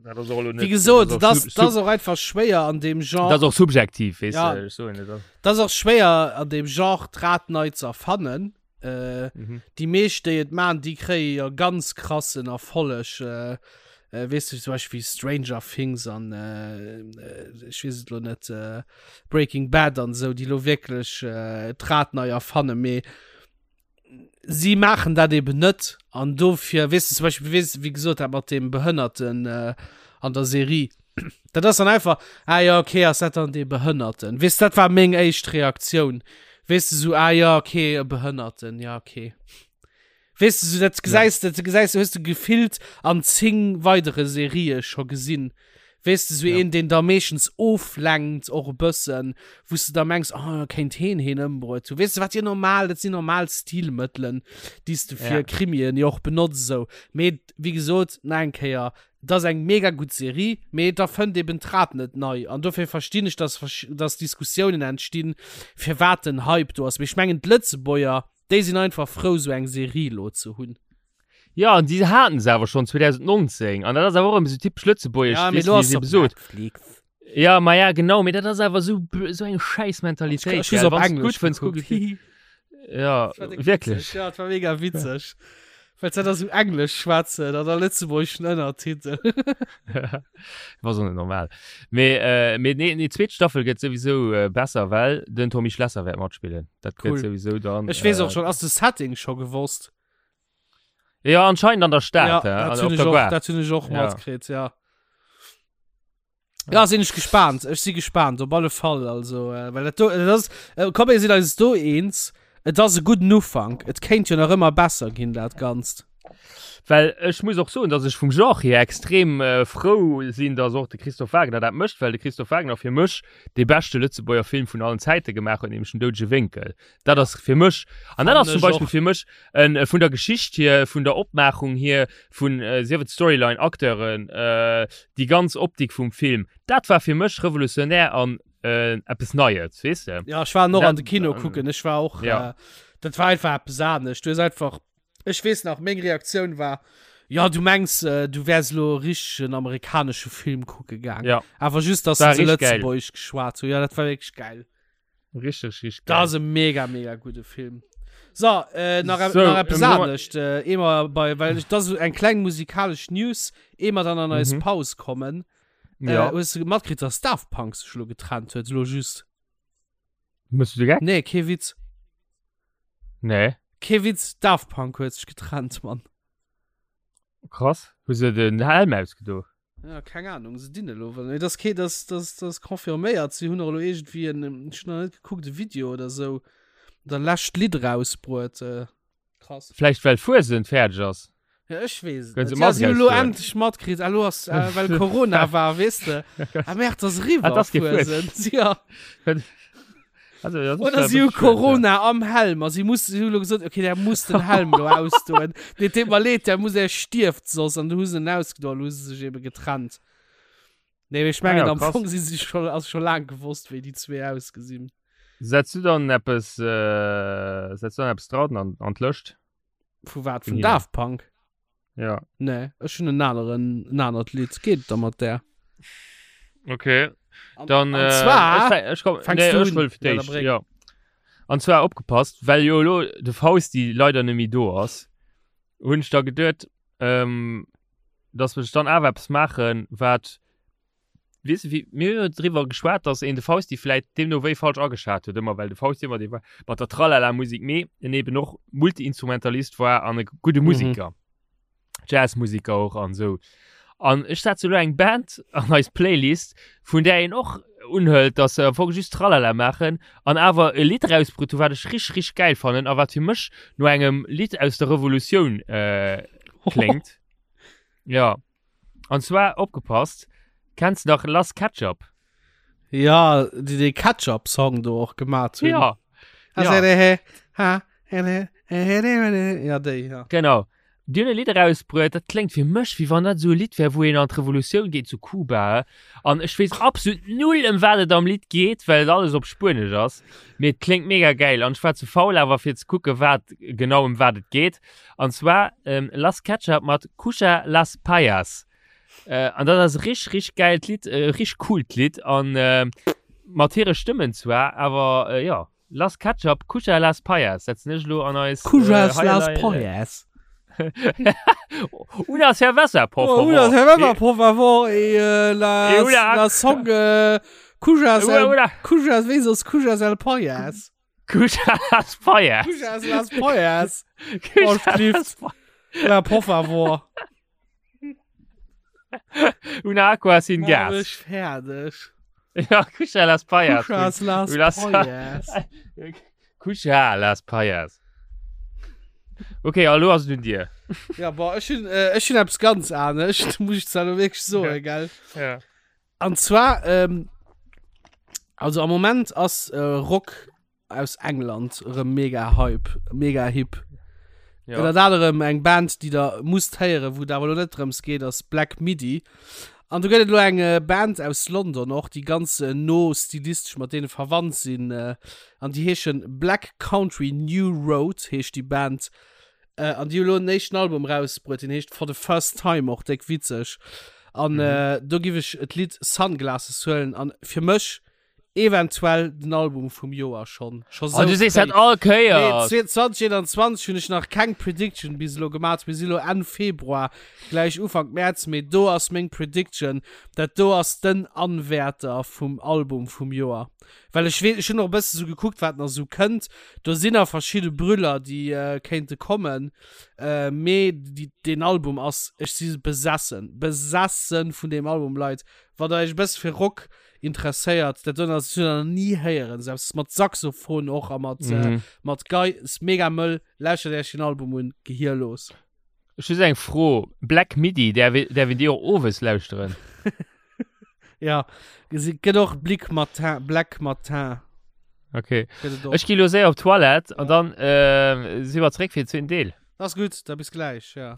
Speaker 2: Dat ass och elo
Speaker 3: Wéi
Speaker 2: net,
Speaker 3: gesot,
Speaker 2: dat
Speaker 3: dat
Speaker 2: ass
Speaker 3: ass, dat ass och einfach schwéier an deem Genre.
Speaker 2: Dat ass och subjektiv, weess
Speaker 3: Ja.
Speaker 2: de, ech soen net.
Speaker 3: Dat ass och schwéier an deem Genre d'Rad nei ze erfannen. Äh,
Speaker 2: Mhm.
Speaker 3: Déi meescht, déi et man, déi kréie jo ganz krassen Erfolleg. Äh, äh, weess du, zum Beispill Stranger Things an äh, äh, ech weess et lo net, äh, Breaking Bad an esou, déi lo wierklech äh, d'Rad nei erfannen. Mee si maachen dat eben net an dofir weess de zum Beispill weess wéi gesot dat mat deem Behënnerten äh, an der Serie dat ass dann einfach ah ja okay ass dat dann dee Behënnerten weess dat war meng éischt Reaktioun weess de sou ah ja okay e Behënnerten ja okay weess de sou dat gesäis dat gesäis hues de gefillt an 10 weidere Serië scho gesinn Weess de, sou
Speaker 2: Ja.
Speaker 3: een, deen da meeschtens oflenkt och e bëssen, wou s de da mengs, oh, kéint heen heen ëmbruet hunn. Weess de, wat jo normal, dat sinn normal Stilmëttelen, déi s de fir
Speaker 2: Ja.
Speaker 3: Krimien jo och benotz esou. Mee wéi gesot, nach eng Kéier, et ass eng mega gutt Serie, mee et erfënnt eben d'Rad net nei. An dofir verstinn ech, dass versch-, dass Diskussiounen entstinn, firwat den Hype do ass. Mee ech mengen, d'Lëtzebuerger, déi sinn einfach frou, sou eng Serie elo ze hunn.
Speaker 2: Ja, an déi haten se awer schonn 2019. An dat ass awer och ëmmer sou typesch lëtzebuergesch,
Speaker 3: Ja, mee
Speaker 2: weess
Speaker 3: lo
Speaker 2: de, wéi
Speaker 3: ass
Speaker 2: se
Speaker 3: se op
Speaker 2: eben sot.
Speaker 3: Netflix.
Speaker 2: Ja, ma ja, genau, mee dat ass awer sou, sou eng schäiss Mentalitéit,
Speaker 3: Ech hu se
Speaker 2: gell.
Speaker 3: op
Speaker 2: Wann s de
Speaker 3: Englesch
Speaker 2: gutt fënns, kuck
Speaker 3: gekuckt.
Speaker 2: et dir. Ja,
Speaker 3: Dat war déck
Speaker 2: wierklech.
Speaker 3: witzeg. Ja, dat war mega witzeg. Well se da sou Englesch schwätzen an da lëtzebuergeschen Ënnertitel.
Speaker 2: War so net normal. Mee, äh, mee nee, nee, zweet Staffel gëtt souwisou äh, besser, well den Tommy Schlesser wäert matspillen. Dat gëtt
Speaker 3: Cool.
Speaker 2: souwisou dann.
Speaker 3: Ech weess
Speaker 2: äh,
Speaker 3: och schon, ass de Setting scho gewosst?
Speaker 2: Ja, anscheinend an der Stad,
Speaker 3: ja,
Speaker 2: ja,
Speaker 3: dat
Speaker 2: an,
Speaker 3: hunn
Speaker 2: op
Speaker 3: ech
Speaker 2: der
Speaker 3: och,
Speaker 2: Gare.
Speaker 3: dat hunn ech och
Speaker 2: Ja.
Speaker 3: matkritt, ja. Ja, sinn ech gespannt. Ech si gespannt, op alle Fall. Also, äh, well dat do, dat ass, äh, komm, mir sinn eis do eens. Et ass e gudden Ufank. Et kéint jo nach ëmmer besser ginn, dat Ganzt.
Speaker 2: Well ech muss och soen, dass ech vum Genre hier extrem äh, frou sinn, dass och de Christophe Wagner dat mécht, well de Christophe Wagner fir mech dee beschte Lëtzebuerger Film vun allen Zäite gemaach huet, nämlech den Doudege Wénkel. Dat ass fir mech, an dat
Speaker 3: Fannen
Speaker 2: ass zum
Speaker 3: ech
Speaker 2: Beispill
Speaker 3: och.
Speaker 2: fir mech en, vun der Geschicht hier, vun der Opmaachung hier, vun äh, sief et Storyline, Acteuren, äh, déi ganz Optik vum Film, dat war fir mech revolutionär an äh, eppes Neies, weess de?
Speaker 3: Ja, ech war och an de
Speaker 2: Dat,
Speaker 3: Kino
Speaker 2: ähm,
Speaker 3: kucken. Ech war och,
Speaker 2: ja.
Speaker 3: äh, dat war einfach eppes anescht. Du hues einfach, ech weess nach, meng Reaktioun war, ja, du mengs, äh, du wäers elo e richtegen amerikanesche Film kucke gaang.
Speaker 2: Ja.
Speaker 3: Awer just, dass
Speaker 2: War
Speaker 3: se
Speaker 2: richtig geil.
Speaker 3: Lëtzebuergesch geschwat hunn. Ja, dat war wierklech geil.
Speaker 2: Richtig, richtig
Speaker 3: Dat
Speaker 2: geil.
Speaker 3: ass e mega, mega gudde Film. So, äh, nach,
Speaker 2: So,
Speaker 3: nach eppes
Speaker 2: ähm, nochmal-
Speaker 3: anescht. Äh, ehe mer bei, well ich, das ist eng kleng musikalesch News, ehe mer dann an eis
Speaker 2: Mhm.
Speaker 3: Paus kommen. Äh,
Speaker 2: Ja.
Speaker 3: hues du matkritt, dass Daft Punk sech lo getrennt huet, lo just?
Speaker 2: Mëss du de Geck?
Speaker 3: Nee, kee Witz.
Speaker 2: Nee.
Speaker 3: Kee Witz, Daft Punk huet sech getrennt, Mann.
Speaker 2: Krass. Hu se den Helm ausgedo?
Speaker 3: Ja, keng Ahnung, se dinn elo well. Nee, das kee, das, das, das confirméiert. Si hunn och elo iergendwéi en, ech hunn nach net gekuckt, e Video oder sou, der lescht Lidd rausbruet. Äh, krass.
Speaker 2: Vläicht well Fuesent fäerdeg ass.
Speaker 3: Ja, ech weess et
Speaker 2: Kënne
Speaker 3: net.
Speaker 2: se
Speaker 3: Ja, si
Speaker 2: Mask
Speaker 3: hunn elo
Speaker 2: ausdoen.
Speaker 3: endlech matkritt, ah, elo ass, äh, well Corona war, weess de. Ah, Merde, ass eriwwer,
Speaker 2: Ah, das kee
Speaker 3: Fuesent. Ja.
Speaker 2: Also, das ist
Speaker 3: Oder
Speaker 2: ja
Speaker 3: si hu
Speaker 2: wirklich schön, ja.
Speaker 3: Corona am Helm a si muss, si hu elo gesot, okay, der muss den Helm elo ausdoen. Dee deet mer leed, der muss, er stierft soss. An du hu se en ausgedoen, elo hu se sech ebe getrennt. Nee, mee ech mengen,
Speaker 2: Ah ja,
Speaker 3: am
Speaker 2: krass.
Speaker 3: Fong si si scho, ass scho laang gewosst, wéi déi zwee ausgesinn.
Speaker 2: Setz du dann eppes, äh, setz du dann eppes dran an, an d'Lëscht?
Speaker 3: Vu wat?
Speaker 2: Vun
Speaker 3: Vun
Speaker 2: hinnen.
Speaker 3: Daft Punk?
Speaker 2: Ja.
Speaker 3: Nee, ech hunn en aneren, en anert Lidd. Geet da mat där.
Speaker 2: Okay.
Speaker 3: An,
Speaker 2: Dann,
Speaker 3: an
Speaker 2: äh,
Speaker 3: zwar
Speaker 2: ech, ech, komm,
Speaker 3: fängst
Speaker 2: nee,
Speaker 3: du
Speaker 2: ech
Speaker 3: un.
Speaker 2: wëll fir
Speaker 3: Ja, da
Speaker 2: d'éischt,
Speaker 3: bréng.
Speaker 2: ja. An zwar opgepasst, well jo elo de Fausti leider net méi do ass, hunn ech da geduet, ähm, dass ech dann awer eppes maachen, wat, weess de, wéi, mir hu jo driwwer geschwat, dass een de Fausti vläit deemno wéi falsch ageschat huet ëmmer, well de Fausti ëmmer dee war mat der Tralala-Musik, mee en eben och Multi-Instrumentalist war an e gudde Musiker. Mm -hmm. Jazzmusiker och an esou. An ech setze lo eng Band an eis Playlist, vun där een och unhëlt, dass se am Fong just Tralala maachen an awer e Lidd erausbrutt hu wat ech rich rich gäil fannen a wat fir mech no engem Lidd aus der Revolutioun äh, kléngt. Ja. An zwar, opgepasst, kenns de nach Las Ketchup?
Speaker 3: Ja, déi dee Ketchup-Song do och gemat hunn.
Speaker 2: Ja.
Speaker 3: Ja. Ja, déi, ja.
Speaker 2: Genau. Déi hunn e Lidd erausbruet, dat kléngt fir mech, wéi wann dat esou e Lidd wär, wou een an d'Revolutioun geet zu Kuba. An ech weess absolut null, ëm wat et am Lidd geet, well et alles op Spuenesch ass. Mee et kléngt mega gäil an ech war ze faul awer fir ze kucken, wat genau ëm wat et geet. An zwar Las Ketchup mat Cucha las Payas. An dat ass e rich, rich gäilt Lidd, e rich coolt Lidd an mat hire Stëmmen zwar, awer jo. Las Ketchup, Cucha las Payas setzen ech elo an eis
Speaker 3: Cujas äh, las Payas.
Speaker 2: Una cerveza, por
Speaker 3: oh,
Speaker 2: favor.
Speaker 3: Una cerveza, por favor. E, äh, la, e una... la song äh, Cujas, el, una... Cujas, wéi sos Cujas el Payas.
Speaker 2: Cujas las Payas.
Speaker 3: Cujas las Payas. Cujas las Payas. La, por favor.
Speaker 2: Una aqua sin gas.
Speaker 3: Ech fäerdeg.
Speaker 2: Ja, Cucha las Payas.
Speaker 3: Cuchas las Payas.
Speaker 2: Cucha las Payas. Okay, hallo ass et un dir.
Speaker 3: Ja, boah, ech hunn äh, ech hunn eppes ganz anescht, muss ich zwar lo wierklech soen, gell?
Speaker 2: Ja.
Speaker 3: An zwar, ähm, also am Moment ass äh, Rock aus England erëm mega Hype, mega hip.
Speaker 2: Ja.
Speaker 3: Ënnert anerem eng Band, déi der musst héieren, wou et awer elo net drëms geet, ass Black Midi. An do gëtt et elo eng äh, Band aus London och, déi ganz äh, no stilistesch mat deene verwandt sinn. Äh, an déi heeschen Black Country New Road, heescht déi Band. Äh, an déi hu elo en éischten Album rausbruet, deen heescht For the First Time, och déck witzeg. An mhm. äh, do giff ech d'Lidd Sunglasses huelen. An fir mech Eventuell den Album vum Joer schon. Scho
Speaker 2: Oh, du sees dat all Kéier.
Speaker 3: Nee, 2021 hunn ech nach keng Prediction bis elo gemat. Mir si lo Enn Februar, gläich Ufank Mäerz, mee do ass meng Prediction, dat do ass den Anwärter vum Album vum Joer. Well ech weess, ech hunn och e bësse sou gekuckt, wat nach sou kënnt. Do sinn nach verschidde Brüller, déi kéinte kommen, mee deen Album ass, ech si besessen, besessen vun deem Album, Leit. Wann der iech e bësse fir Rock interesséiert dat do ass hun nie héieren selbst mat Saxophon och a mat mhm. äh, mat Gei ist mega mëll lauschtert Iech den Album un Gehir los
Speaker 2: Ech hu eng Fro Black Midi der der win Dir och owes lauschteren
Speaker 3: Ja gesi gëtt och Blick Matin Black Matin
Speaker 2: Okay Ech gi lo séier op Toilette an dann äh, si mer zréck fir den zweeten Deel.
Speaker 3: Das gut, da bis gleich, ja.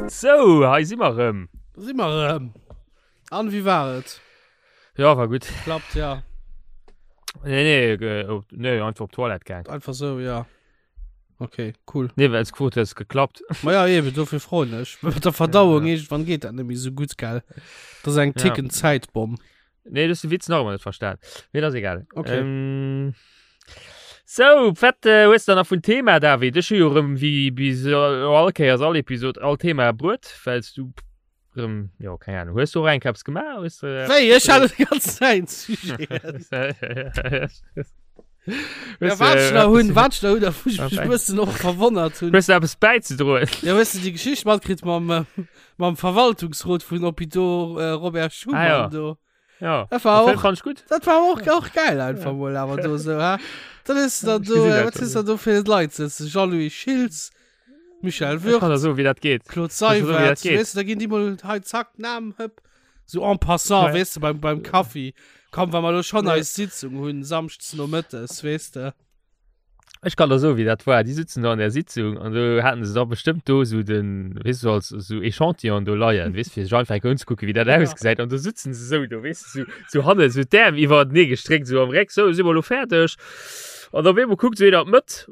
Speaker 2: Sou, hei si mer rëm.
Speaker 3: Si mer rëm. An wéi war et?
Speaker 2: Ja, war gutt.
Speaker 3: Klappt, ja.
Speaker 2: Nee, nee, nee, einfach op d'Toilette gaang.
Speaker 3: Einfach sou, ja. Okay, cool.
Speaker 2: Nee, well s gefrot hues, geklappt.
Speaker 3: Ma ja, eben, dofir froen ech. Mit der Verdauung, ja. irgendwann geht dat net méi sou gutt, gell? Dat ass eng ticken ja. Zäitbomm.
Speaker 2: Nee, du hast de Witz nach ëmmer net verstan. Mee dat ass egal.
Speaker 3: Okay.
Speaker 2: Ähm, so, wat äh, hues du da nach vun Thema, David? Ech hu jo rëm wéi bis äh, all Kéiers all Episod all Thema bruet, wells du Rëm, jo, keng Ahnung. Hues du och eng Keps gemaach? Hues du, äh,
Speaker 3: Wéi? Ech hat déi ganz Zäit Sujeten. Ja, wat ech nach hunn, wat ech nach hunn, da wou ech mech e bëssen och verwonnert hunn.
Speaker 2: Hues du eppes bäizedroen?
Speaker 3: Ja, hues du déi Geschicht matkritt mam, äh, mam Verwaltungsrot vun Hôpitaux äh, Robert Schuman
Speaker 2: Ah, ja.
Speaker 3: do?
Speaker 2: Ja.
Speaker 3: Dat war
Speaker 2: Den Film
Speaker 3: och,
Speaker 2: fand ich gut.
Speaker 3: dat war och, och geil einfach mol awer do sou, hä? Dann is da
Speaker 2: Ich
Speaker 3: do,
Speaker 2: gesinn
Speaker 3: äh,
Speaker 2: dat
Speaker 3: wat
Speaker 2: schon.
Speaker 3: is da do fir Leit sëtzen? Jean-Louis Schiltz, Michel
Speaker 2: Ich kann da
Speaker 3: Würth,
Speaker 2: so, wie dat geht.
Speaker 3: Claude
Speaker 2: kann so, wie
Speaker 3: Seywert,
Speaker 2: dat geht.
Speaker 3: weess du, da ginn déi mol hei zack, Namen, hëpp. So en passant,
Speaker 2: Ja.
Speaker 3: weess du, beim, beim Kaffi. Komm, wa mer lo schon
Speaker 2: Ja.
Speaker 3: eis Sitzung hunn, samschdes nomëttes, weess de.
Speaker 2: Ech kann der soen, wéi dat war. Déi sitzen do an der Sitzung an do haten se da bestëmmt do sou den, weess du, als sou Echantillon do leien, weess, fir sech einfach eng Kéier unzekucken, wéi dat
Speaker 3: Ja.
Speaker 2: ausgesäit. An do sitzen se sou do, weess du, sou, sou hanne sou d'Äerm iwwerenee gestréckt, sou am Réck, sou, si mer elo fäerdeg? An op eemol kuckt sou een an d'Mëtt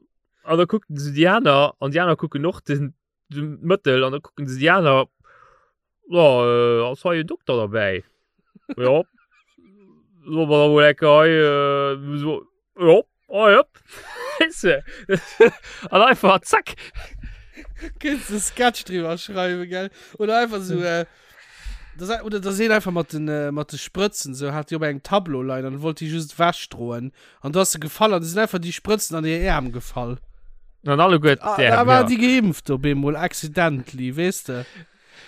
Speaker 2: an da kuckt en sou déi aner an déi aner kucken och den. De Mëttel an da kucken se déi aner, Jo, ass hei en Dokter derbäi? Jo. Solle mer da mol eng Kéier hei, so, jo, hei, hopp. Weess de? An einfach zack.
Speaker 3: Kéints de Sketch driwwer schreiwen, gell? Oder einfach so, äh, das, oder da seen einfach mat den, äh, mat de Sprëtzen, so hat déi op engem Tableau leien an wollt déi just ewechdroen. An du ass se gefall an du sinn einfach déi Sprëtzen an hir Äerm gefall.
Speaker 2: An alleguer
Speaker 3: Ah,
Speaker 2: d'Äerm,
Speaker 3: da war
Speaker 2: ja.
Speaker 3: déi geimpft op eemol, accidentally, weess de?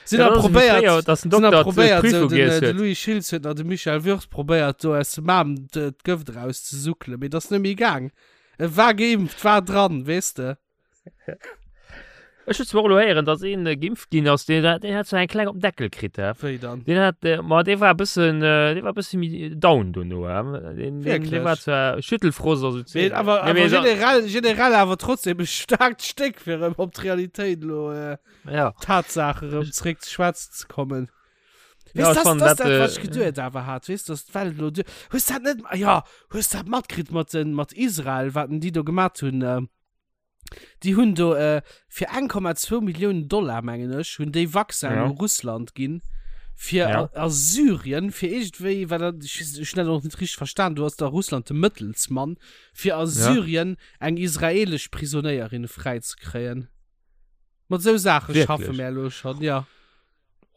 Speaker 3: Sinn
Speaker 2: Ja,
Speaker 3: da
Speaker 2: dat ass wéi
Speaker 3: probéiert,
Speaker 2: fréier, dass den
Speaker 3: sinn da
Speaker 2: Dokter
Speaker 3: probéiert,
Speaker 2: d'Prüfung
Speaker 3: so den,
Speaker 2: giess
Speaker 3: äh, de
Speaker 2: huet.
Speaker 3: Louis Schiltz huet nach de Michael Würth probéiert, do aus dem Aarm d'Gëft erauszesuckelen, mee dat ass net méi gaang. E war geimpft, war dran, weess de?
Speaker 2: Ech hu zwar och elo héieren, dass een geimpft ginn ass, deen hat, deen hat zwar eng kleng op den Deckel kritt, hä?
Speaker 3: Wéi dann?
Speaker 2: Deen hat, ma dee war e bëssen, dee war e bësse méi down dono, hä? Deen, deen, dee war
Speaker 3: Wierklech?
Speaker 2: zwar Schüttelfrost a sou
Speaker 3: Mee
Speaker 2: Zeeg.
Speaker 3: awer,
Speaker 2: Nee,
Speaker 3: awer
Speaker 2: mee sa-
Speaker 3: generell, generell awer trotzdem e staarkt Stéck, fir erëm op d'Realitéit elo, äh,
Speaker 2: Ja.
Speaker 3: Tatsache erëm zréck ze schwätzen ze kommen.
Speaker 2: Ja,
Speaker 3: Weess,
Speaker 2: ech
Speaker 3: das,
Speaker 2: fannen
Speaker 3: das
Speaker 2: dat,
Speaker 3: dat, wat
Speaker 2: äh,
Speaker 3: ech geduet awer hat, weess, dass d'Welt elo duer. Hues dat net, ah ja, hues dat matkritt mat den, mat Israel, wat denn déi do gemat hunn? Äh, Déi hunn do äh, fir 1,2 Milliounen Dollar, mengen ech, hunn déi Vaccin
Speaker 2: Ja.
Speaker 3: u Russland ginn, fir
Speaker 2: Ja.
Speaker 3: a, a Syrien, fir iergendwéi, well dat, ech, ech hunn dat och net richteg verstan, do ass da Russland de Mëttelsmann, fir a Syrien eng israelesch Prisonéierin fräizekréien. Mat esou Saache schaffe
Speaker 2: Wierklech?
Speaker 3: mär elo schonn, ja.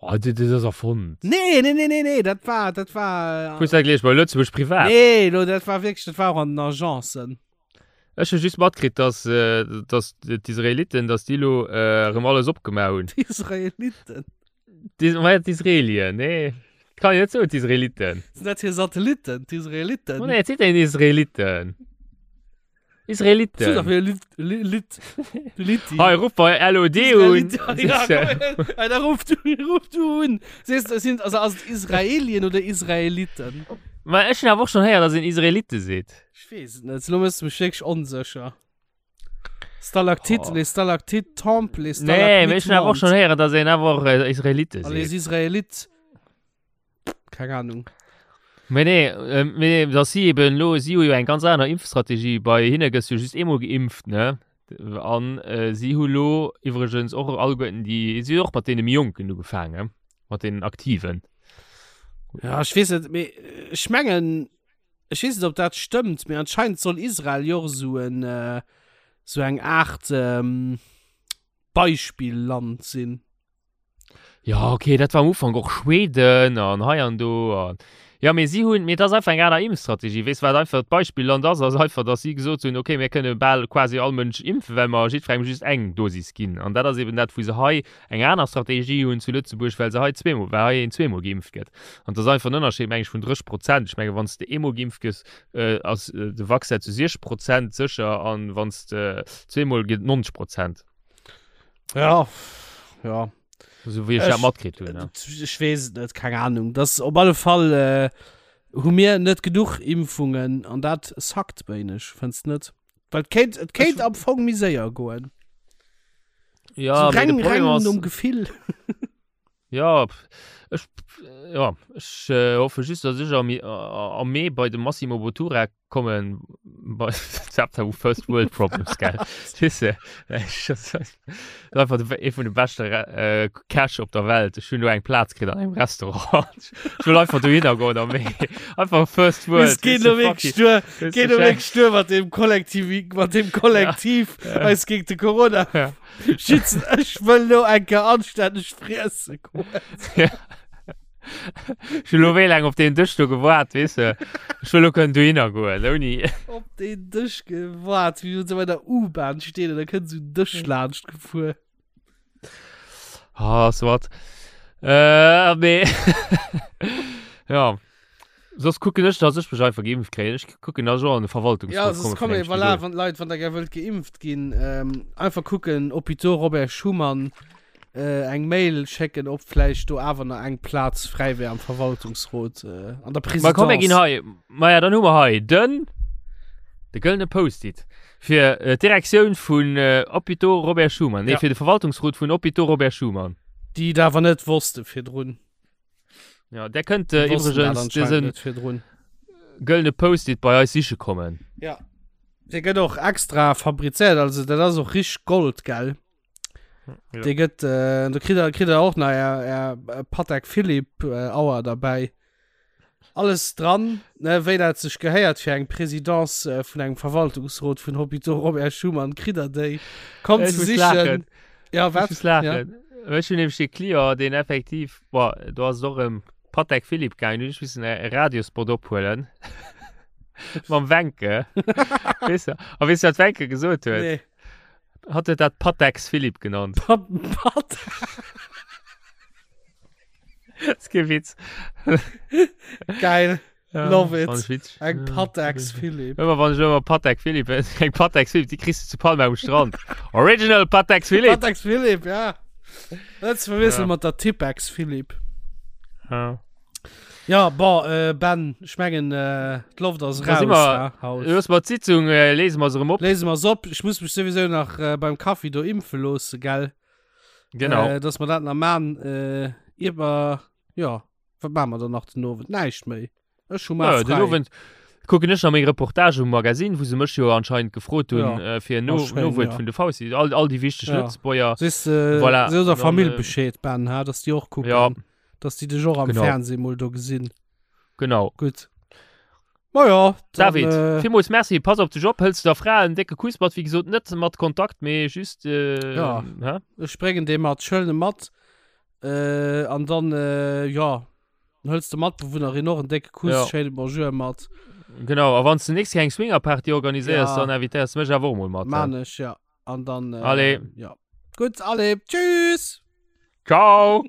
Speaker 2: Oh, dat dat ass erfonnt.
Speaker 3: Nee, nee, nee, nee, nee, dat war, dat war.
Speaker 2: Hues dat gelees bei Lëtzebuerg Privat?
Speaker 3: Nee, lo, dat war wierklech, dat war och an den Agencen.
Speaker 2: Ech hu just matkritt, dass, äh, dass d'Israeliten, dass déi lo äh, erëm alles opgemaach hunn.
Speaker 3: D'Israeliten?
Speaker 2: D'Is ma ja, d'Israelien, nee. Kann een net soen, d'Israeliten.
Speaker 3: Sinn dat hir Satellitten, d'Israeliten?
Speaker 2: Oh nee, et seet een Israeliten.
Speaker 3: So doch
Speaker 2: Israeliten.
Speaker 3: wieder Lit, Lit, Lit, Litti.
Speaker 2: Hei, ruff bei LOD un.
Speaker 3: Ja, komm, ja, da ruf du, ruf du un. Siehst du, sind, also, also Israelien oder Israeliten?
Speaker 2: Ma ech hunn awer och schonn héieren, dass een Israelite seet.
Speaker 3: Ech weess et net. Lo méchs du mech wierklech onsécher. Stalaktit,
Speaker 2: Oh.
Speaker 3: les Stalactites tombent, les
Speaker 2: Nee,
Speaker 3: Stalagmites
Speaker 2: mee ech hunn awer och
Speaker 3: montent.
Speaker 2: schonn héieren, dass een awer och äh, Israelite
Speaker 3: A les
Speaker 2: seet.
Speaker 3: Israélites. Keng Ahnung.
Speaker 2: Mee nee, äh, mee dass si eben lo, si hu jo eng ganz aner Impfstrategie. Bei hinne gëss du just eemol geimpft, ne? An äh, si hu lo iwwregens och alleguerten déi, si hu och mat deene méi Jonken ugefaangen, mat deenen Aktiven.
Speaker 3: Ja, ech weess net, mee ech mengen, Ech weess net, ob dat stëmmt, mee anscheinend soll Israel jo och esou en, esou eng Aart Beispilland sinn.
Speaker 2: Ja, okay, dat war am Ufank och Schweden an hei an do an. Ja, mee si hunn, mee et ass einfach eng aner Impfstrategie. Weess wat einfach d'Beispilland ass, ass einfach, datt si gesot hunn, okay, mir kënne bal quasi all Mënsch impfen, well mer jiddwerengem just eng Dosis ginn. An dat ass eben dat, wou se hei eng aner Strategie hunn zu Lëtzebuerg, well se hei zweemol, well hei een zweemol geimpft gëtt. An et ass einfach en Ënnerscheed, meng ech, vun 30 Prozent. Ech menge wann s de eemol geimpft gëss, ass de Vaccin zu 60 Prozent sécher an wann s de zweemol gëtt 90 Prozent.
Speaker 3: Ja, ja.
Speaker 2: Esou wéi ech dat matkritt hunn.
Speaker 3: Ech weess et net, keng Ahnung. Dat op alle Fall äh, hu mir net genuch Impfungen an dat sackt wéineg, fënns net? Well et kéint, et kéint am Fong méi séier goen.
Speaker 2: Ja,
Speaker 3: so
Speaker 2: mee de
Speaker 3: reng,
Speaker 2: Problem
Speaker 3: reng
Speaker 2: ass,
Speaker 3: nom Gefill.
Speaker 2: ja, pff, ech, ja, ech äh, hoffe just, dass ech am, am Mee bei de Massimo Bottura kommen, bei Zapta First World Problems, gell? Weess de, ech, das ist einfach de, ee vun de beschte äh, Cash op der Welt. Ech hunn do eng Plaz kritt an engem Restaurant. Ech wëll einfach dohinner goen am Mee. Einfach First World.
Speaker 3: Es geht
Speaker 2: weess de,
Speaker 3: lo
Speaker 2: fuck
Speaker 3: wirklich
Speaker 2: it.
Speaker 3: stur,
Speaker 2: Weess
Speaker 3: geht
Speaker 2: de,
Speaker 3: lo wirklich stur mat dem Kollektiv, mat dem Kollektiv
Speaker 2: Ja.
Speaker 3: eis gegen de Corona
Speaker 2: Ja.
Speaker 3: schützen. Ech wëll lo eng Kéier anstänneg friessen goen.
Speaker 2: Ja. Ech hunn lo wéi laang op deen Dësch do gewaart, weess de. Ech wëll lo kënnen dohinner goen, ouni.
Speaker 3: Op deen Dësch gewaart, wéi wann se bei der U-Bahn stehen an da kënnt sou en Dësch laanscht gefuer.
Speaker 2: Ah, soit. Äh, mee. ja. Soss kucken ech, dass ech mech einfach geimpft kréien. Ech kucken, dass ech och an de Verwaltungsrot
Speaker 3: Ja, soss
Speaker 2: komme
Speaker 3: komm,
Speaker 2: vun engem
Speaker 3: voilà,
Speaker 2: Spidol.
Speaker 3: wann d'Leit, wann der gär wëllt geimpft ginn, ähm, einfach kucken, Hôpitaux Robert Schuman, äh, eng Mail schécken, ob vläicht do awer nach eng Plaz fräi wär am Verwaltungsrot, äh, an der
Speaker 2: Ma komm, mir ginn
Speaker 3: Présidence.
Speaker 2: hei. Ma ja, dann hu mer hei den, de gëllene Post-it fir äh, d'Direktioun vun äh, Hôpitaux Robert Schuman. Nee,
Speaker 3: Ja.
Speaker 2: fir de Verwaltungsrot vun Hôpitaux Robert Schuman.
Speaker 3: Déi et awer net wosste virdrun.
Speaker 2: Ja, der kënnt äh,
Speaker 3: Déi wossten dat
Speaker 2: iwwregens
Speaker 3: anscheinend
Speaker 2: dësen
Speaker 3: net virdrun.
Speaker 2: gëllene Post-it bei eis siche kommen.
Speaker 3: Ja. Dee gëtt och extra fabrizéiert, also dat ass och richteg Gold, gell?
Speaker 2: Ja.
Speaker 3: Dee gëtt, äh, do kritt der, kritt der och nach är, är äh, Patek Philippe äh, Auer derbäi. Alles dran, ne, wéi dat sech gehéiert fir eng Présidence äh, vun engem Verwaltungsrot vun Hôpitaux Robert Schuman, kritt der déi. Kommt
Speaker 2: Ech
Speaker 3: ze
Speaker 2: muss
Speaker 3: sichen.
Speaker 2: laachen.
Speaker 3: Ja,
Speaker 2: Ech
Speaker 3: wat?
Speaker 2: muss laachen. Ja. Ech hunn nämlech de Client, deen effektiv, boah, do ass et och ëm Patek Philippe gaangen, hunn ech missen e Radiospot ophuelen. Mam Wenke. Weess du, a weess du, wat Wenke gesot huet?
Speaker 3: Nee.
Speaker 2: Hat huet dat Patex Philippe genannt.
Speaker 3: Pat, Pat.
Speaker 2: Das ist kein Witz.
Speaker 3: Geil.
Speaker 2: Ja,
Speaker 3: Love it.
Speaker 2: fand ich witzig.
Speaker 3: Eng
Speaker 2: Ja,
Speaker 3: Patex Philippe.
Speaker 2: Ëmmer wann ech ëmmer Patek Philippe, eng Patex Philippe, déi kriss du zu Palma um Strand. Original Patex Philippe.
Speaker 3: Patex Philippe, ja. Net ze verwiesselen
Speaker 2: Ja.
Speaker 3: mat der Tipex Philippe.
Speaker 2: Ja.
Speaker 3: Ja, bon, äh, Ben, ech mengen, äh, d'Loft ass
Speaker 2: Da
Speaker 3: raus,
Speaker 2: si mer-
Speaker 3: ha, haut.
Speaker 2: Looss mer d'Sitzung, äh, lese mer se erëm op.
Speaker 3: Léise mer se op. Ech muss mech souwisou nach äh, beim Kaffi do impfe loosse, gell?
Speaker 2: Genau.
Speaker 3: Äh, dass mer dat nach man. Äh, ier mer, ja, wat man mer dann nach den Owend? Näischt méi. Ech hu mar
Speaker 2: Ja, den
Speaker 3: frei.
Speaker 2: Owend kucken ech nach meng Reportage um Magazin, wou se mech jo anscheinend gefrot hunn,
Speaker 3: Ja.
Speaker 2: äh, fir en No
Speaker 3: Ah, schéin,
Speaker 2: Nowuert
Speaker 3: ja.
Speaker 2: vun de Fausti, all, all déi wichteg
Speaker 3: Ja.
Speaker 2: Lëtzebuerger.
Speaker 3: Sees, äh,
Speaker 2: Voilà.
Speaker 3: sees der
Speaker 2: Dann,
Speaker 3: Famill
Speaker 2: äh,
Speaker 3: Bescheed, Ben, ha, dass déi och kucken.
Speaker 2: Ja.
Speaker 3: Dass déi dech och am
Speaker 2: Genau.
Speaker 3: Fernseh mol do gesinn.
Speaker 2: Genau.
Speaker 3: Gutt. Ma ja, dann,
Speaker 2: David,
Speaker 3: äh,
Speaker 2: villmools Merci, pass op dech op, hëls der Fra en décke Kuss mat, wéi gesot net mat Kontakt, mee just, äh,
Speaker 3: Ja.
Speaker 2: hä?
Speaker 3: Ech bréngen dee mat, ech huelen e mat. Äh, an dann, äh, ja, dann hëls de Matbewunnerin och en décke Kuss,
Speaker 2: Ja.
Speaker 3: schéine Bonjour mat.
Speaker 2: Genau, a wann s de nächst Kéier eng Swingerparty organiséiers,
Speaker 3: Ja.
Speaker 2: dann invitéiers de mech awer och mol mat. hä?
Speaker 3: Man ech, ja. An dann, äh,
Speaker 2: Allez.
Speaker 3: ja. Gutt, allez, tschüss!
Speaker 2: Ciao!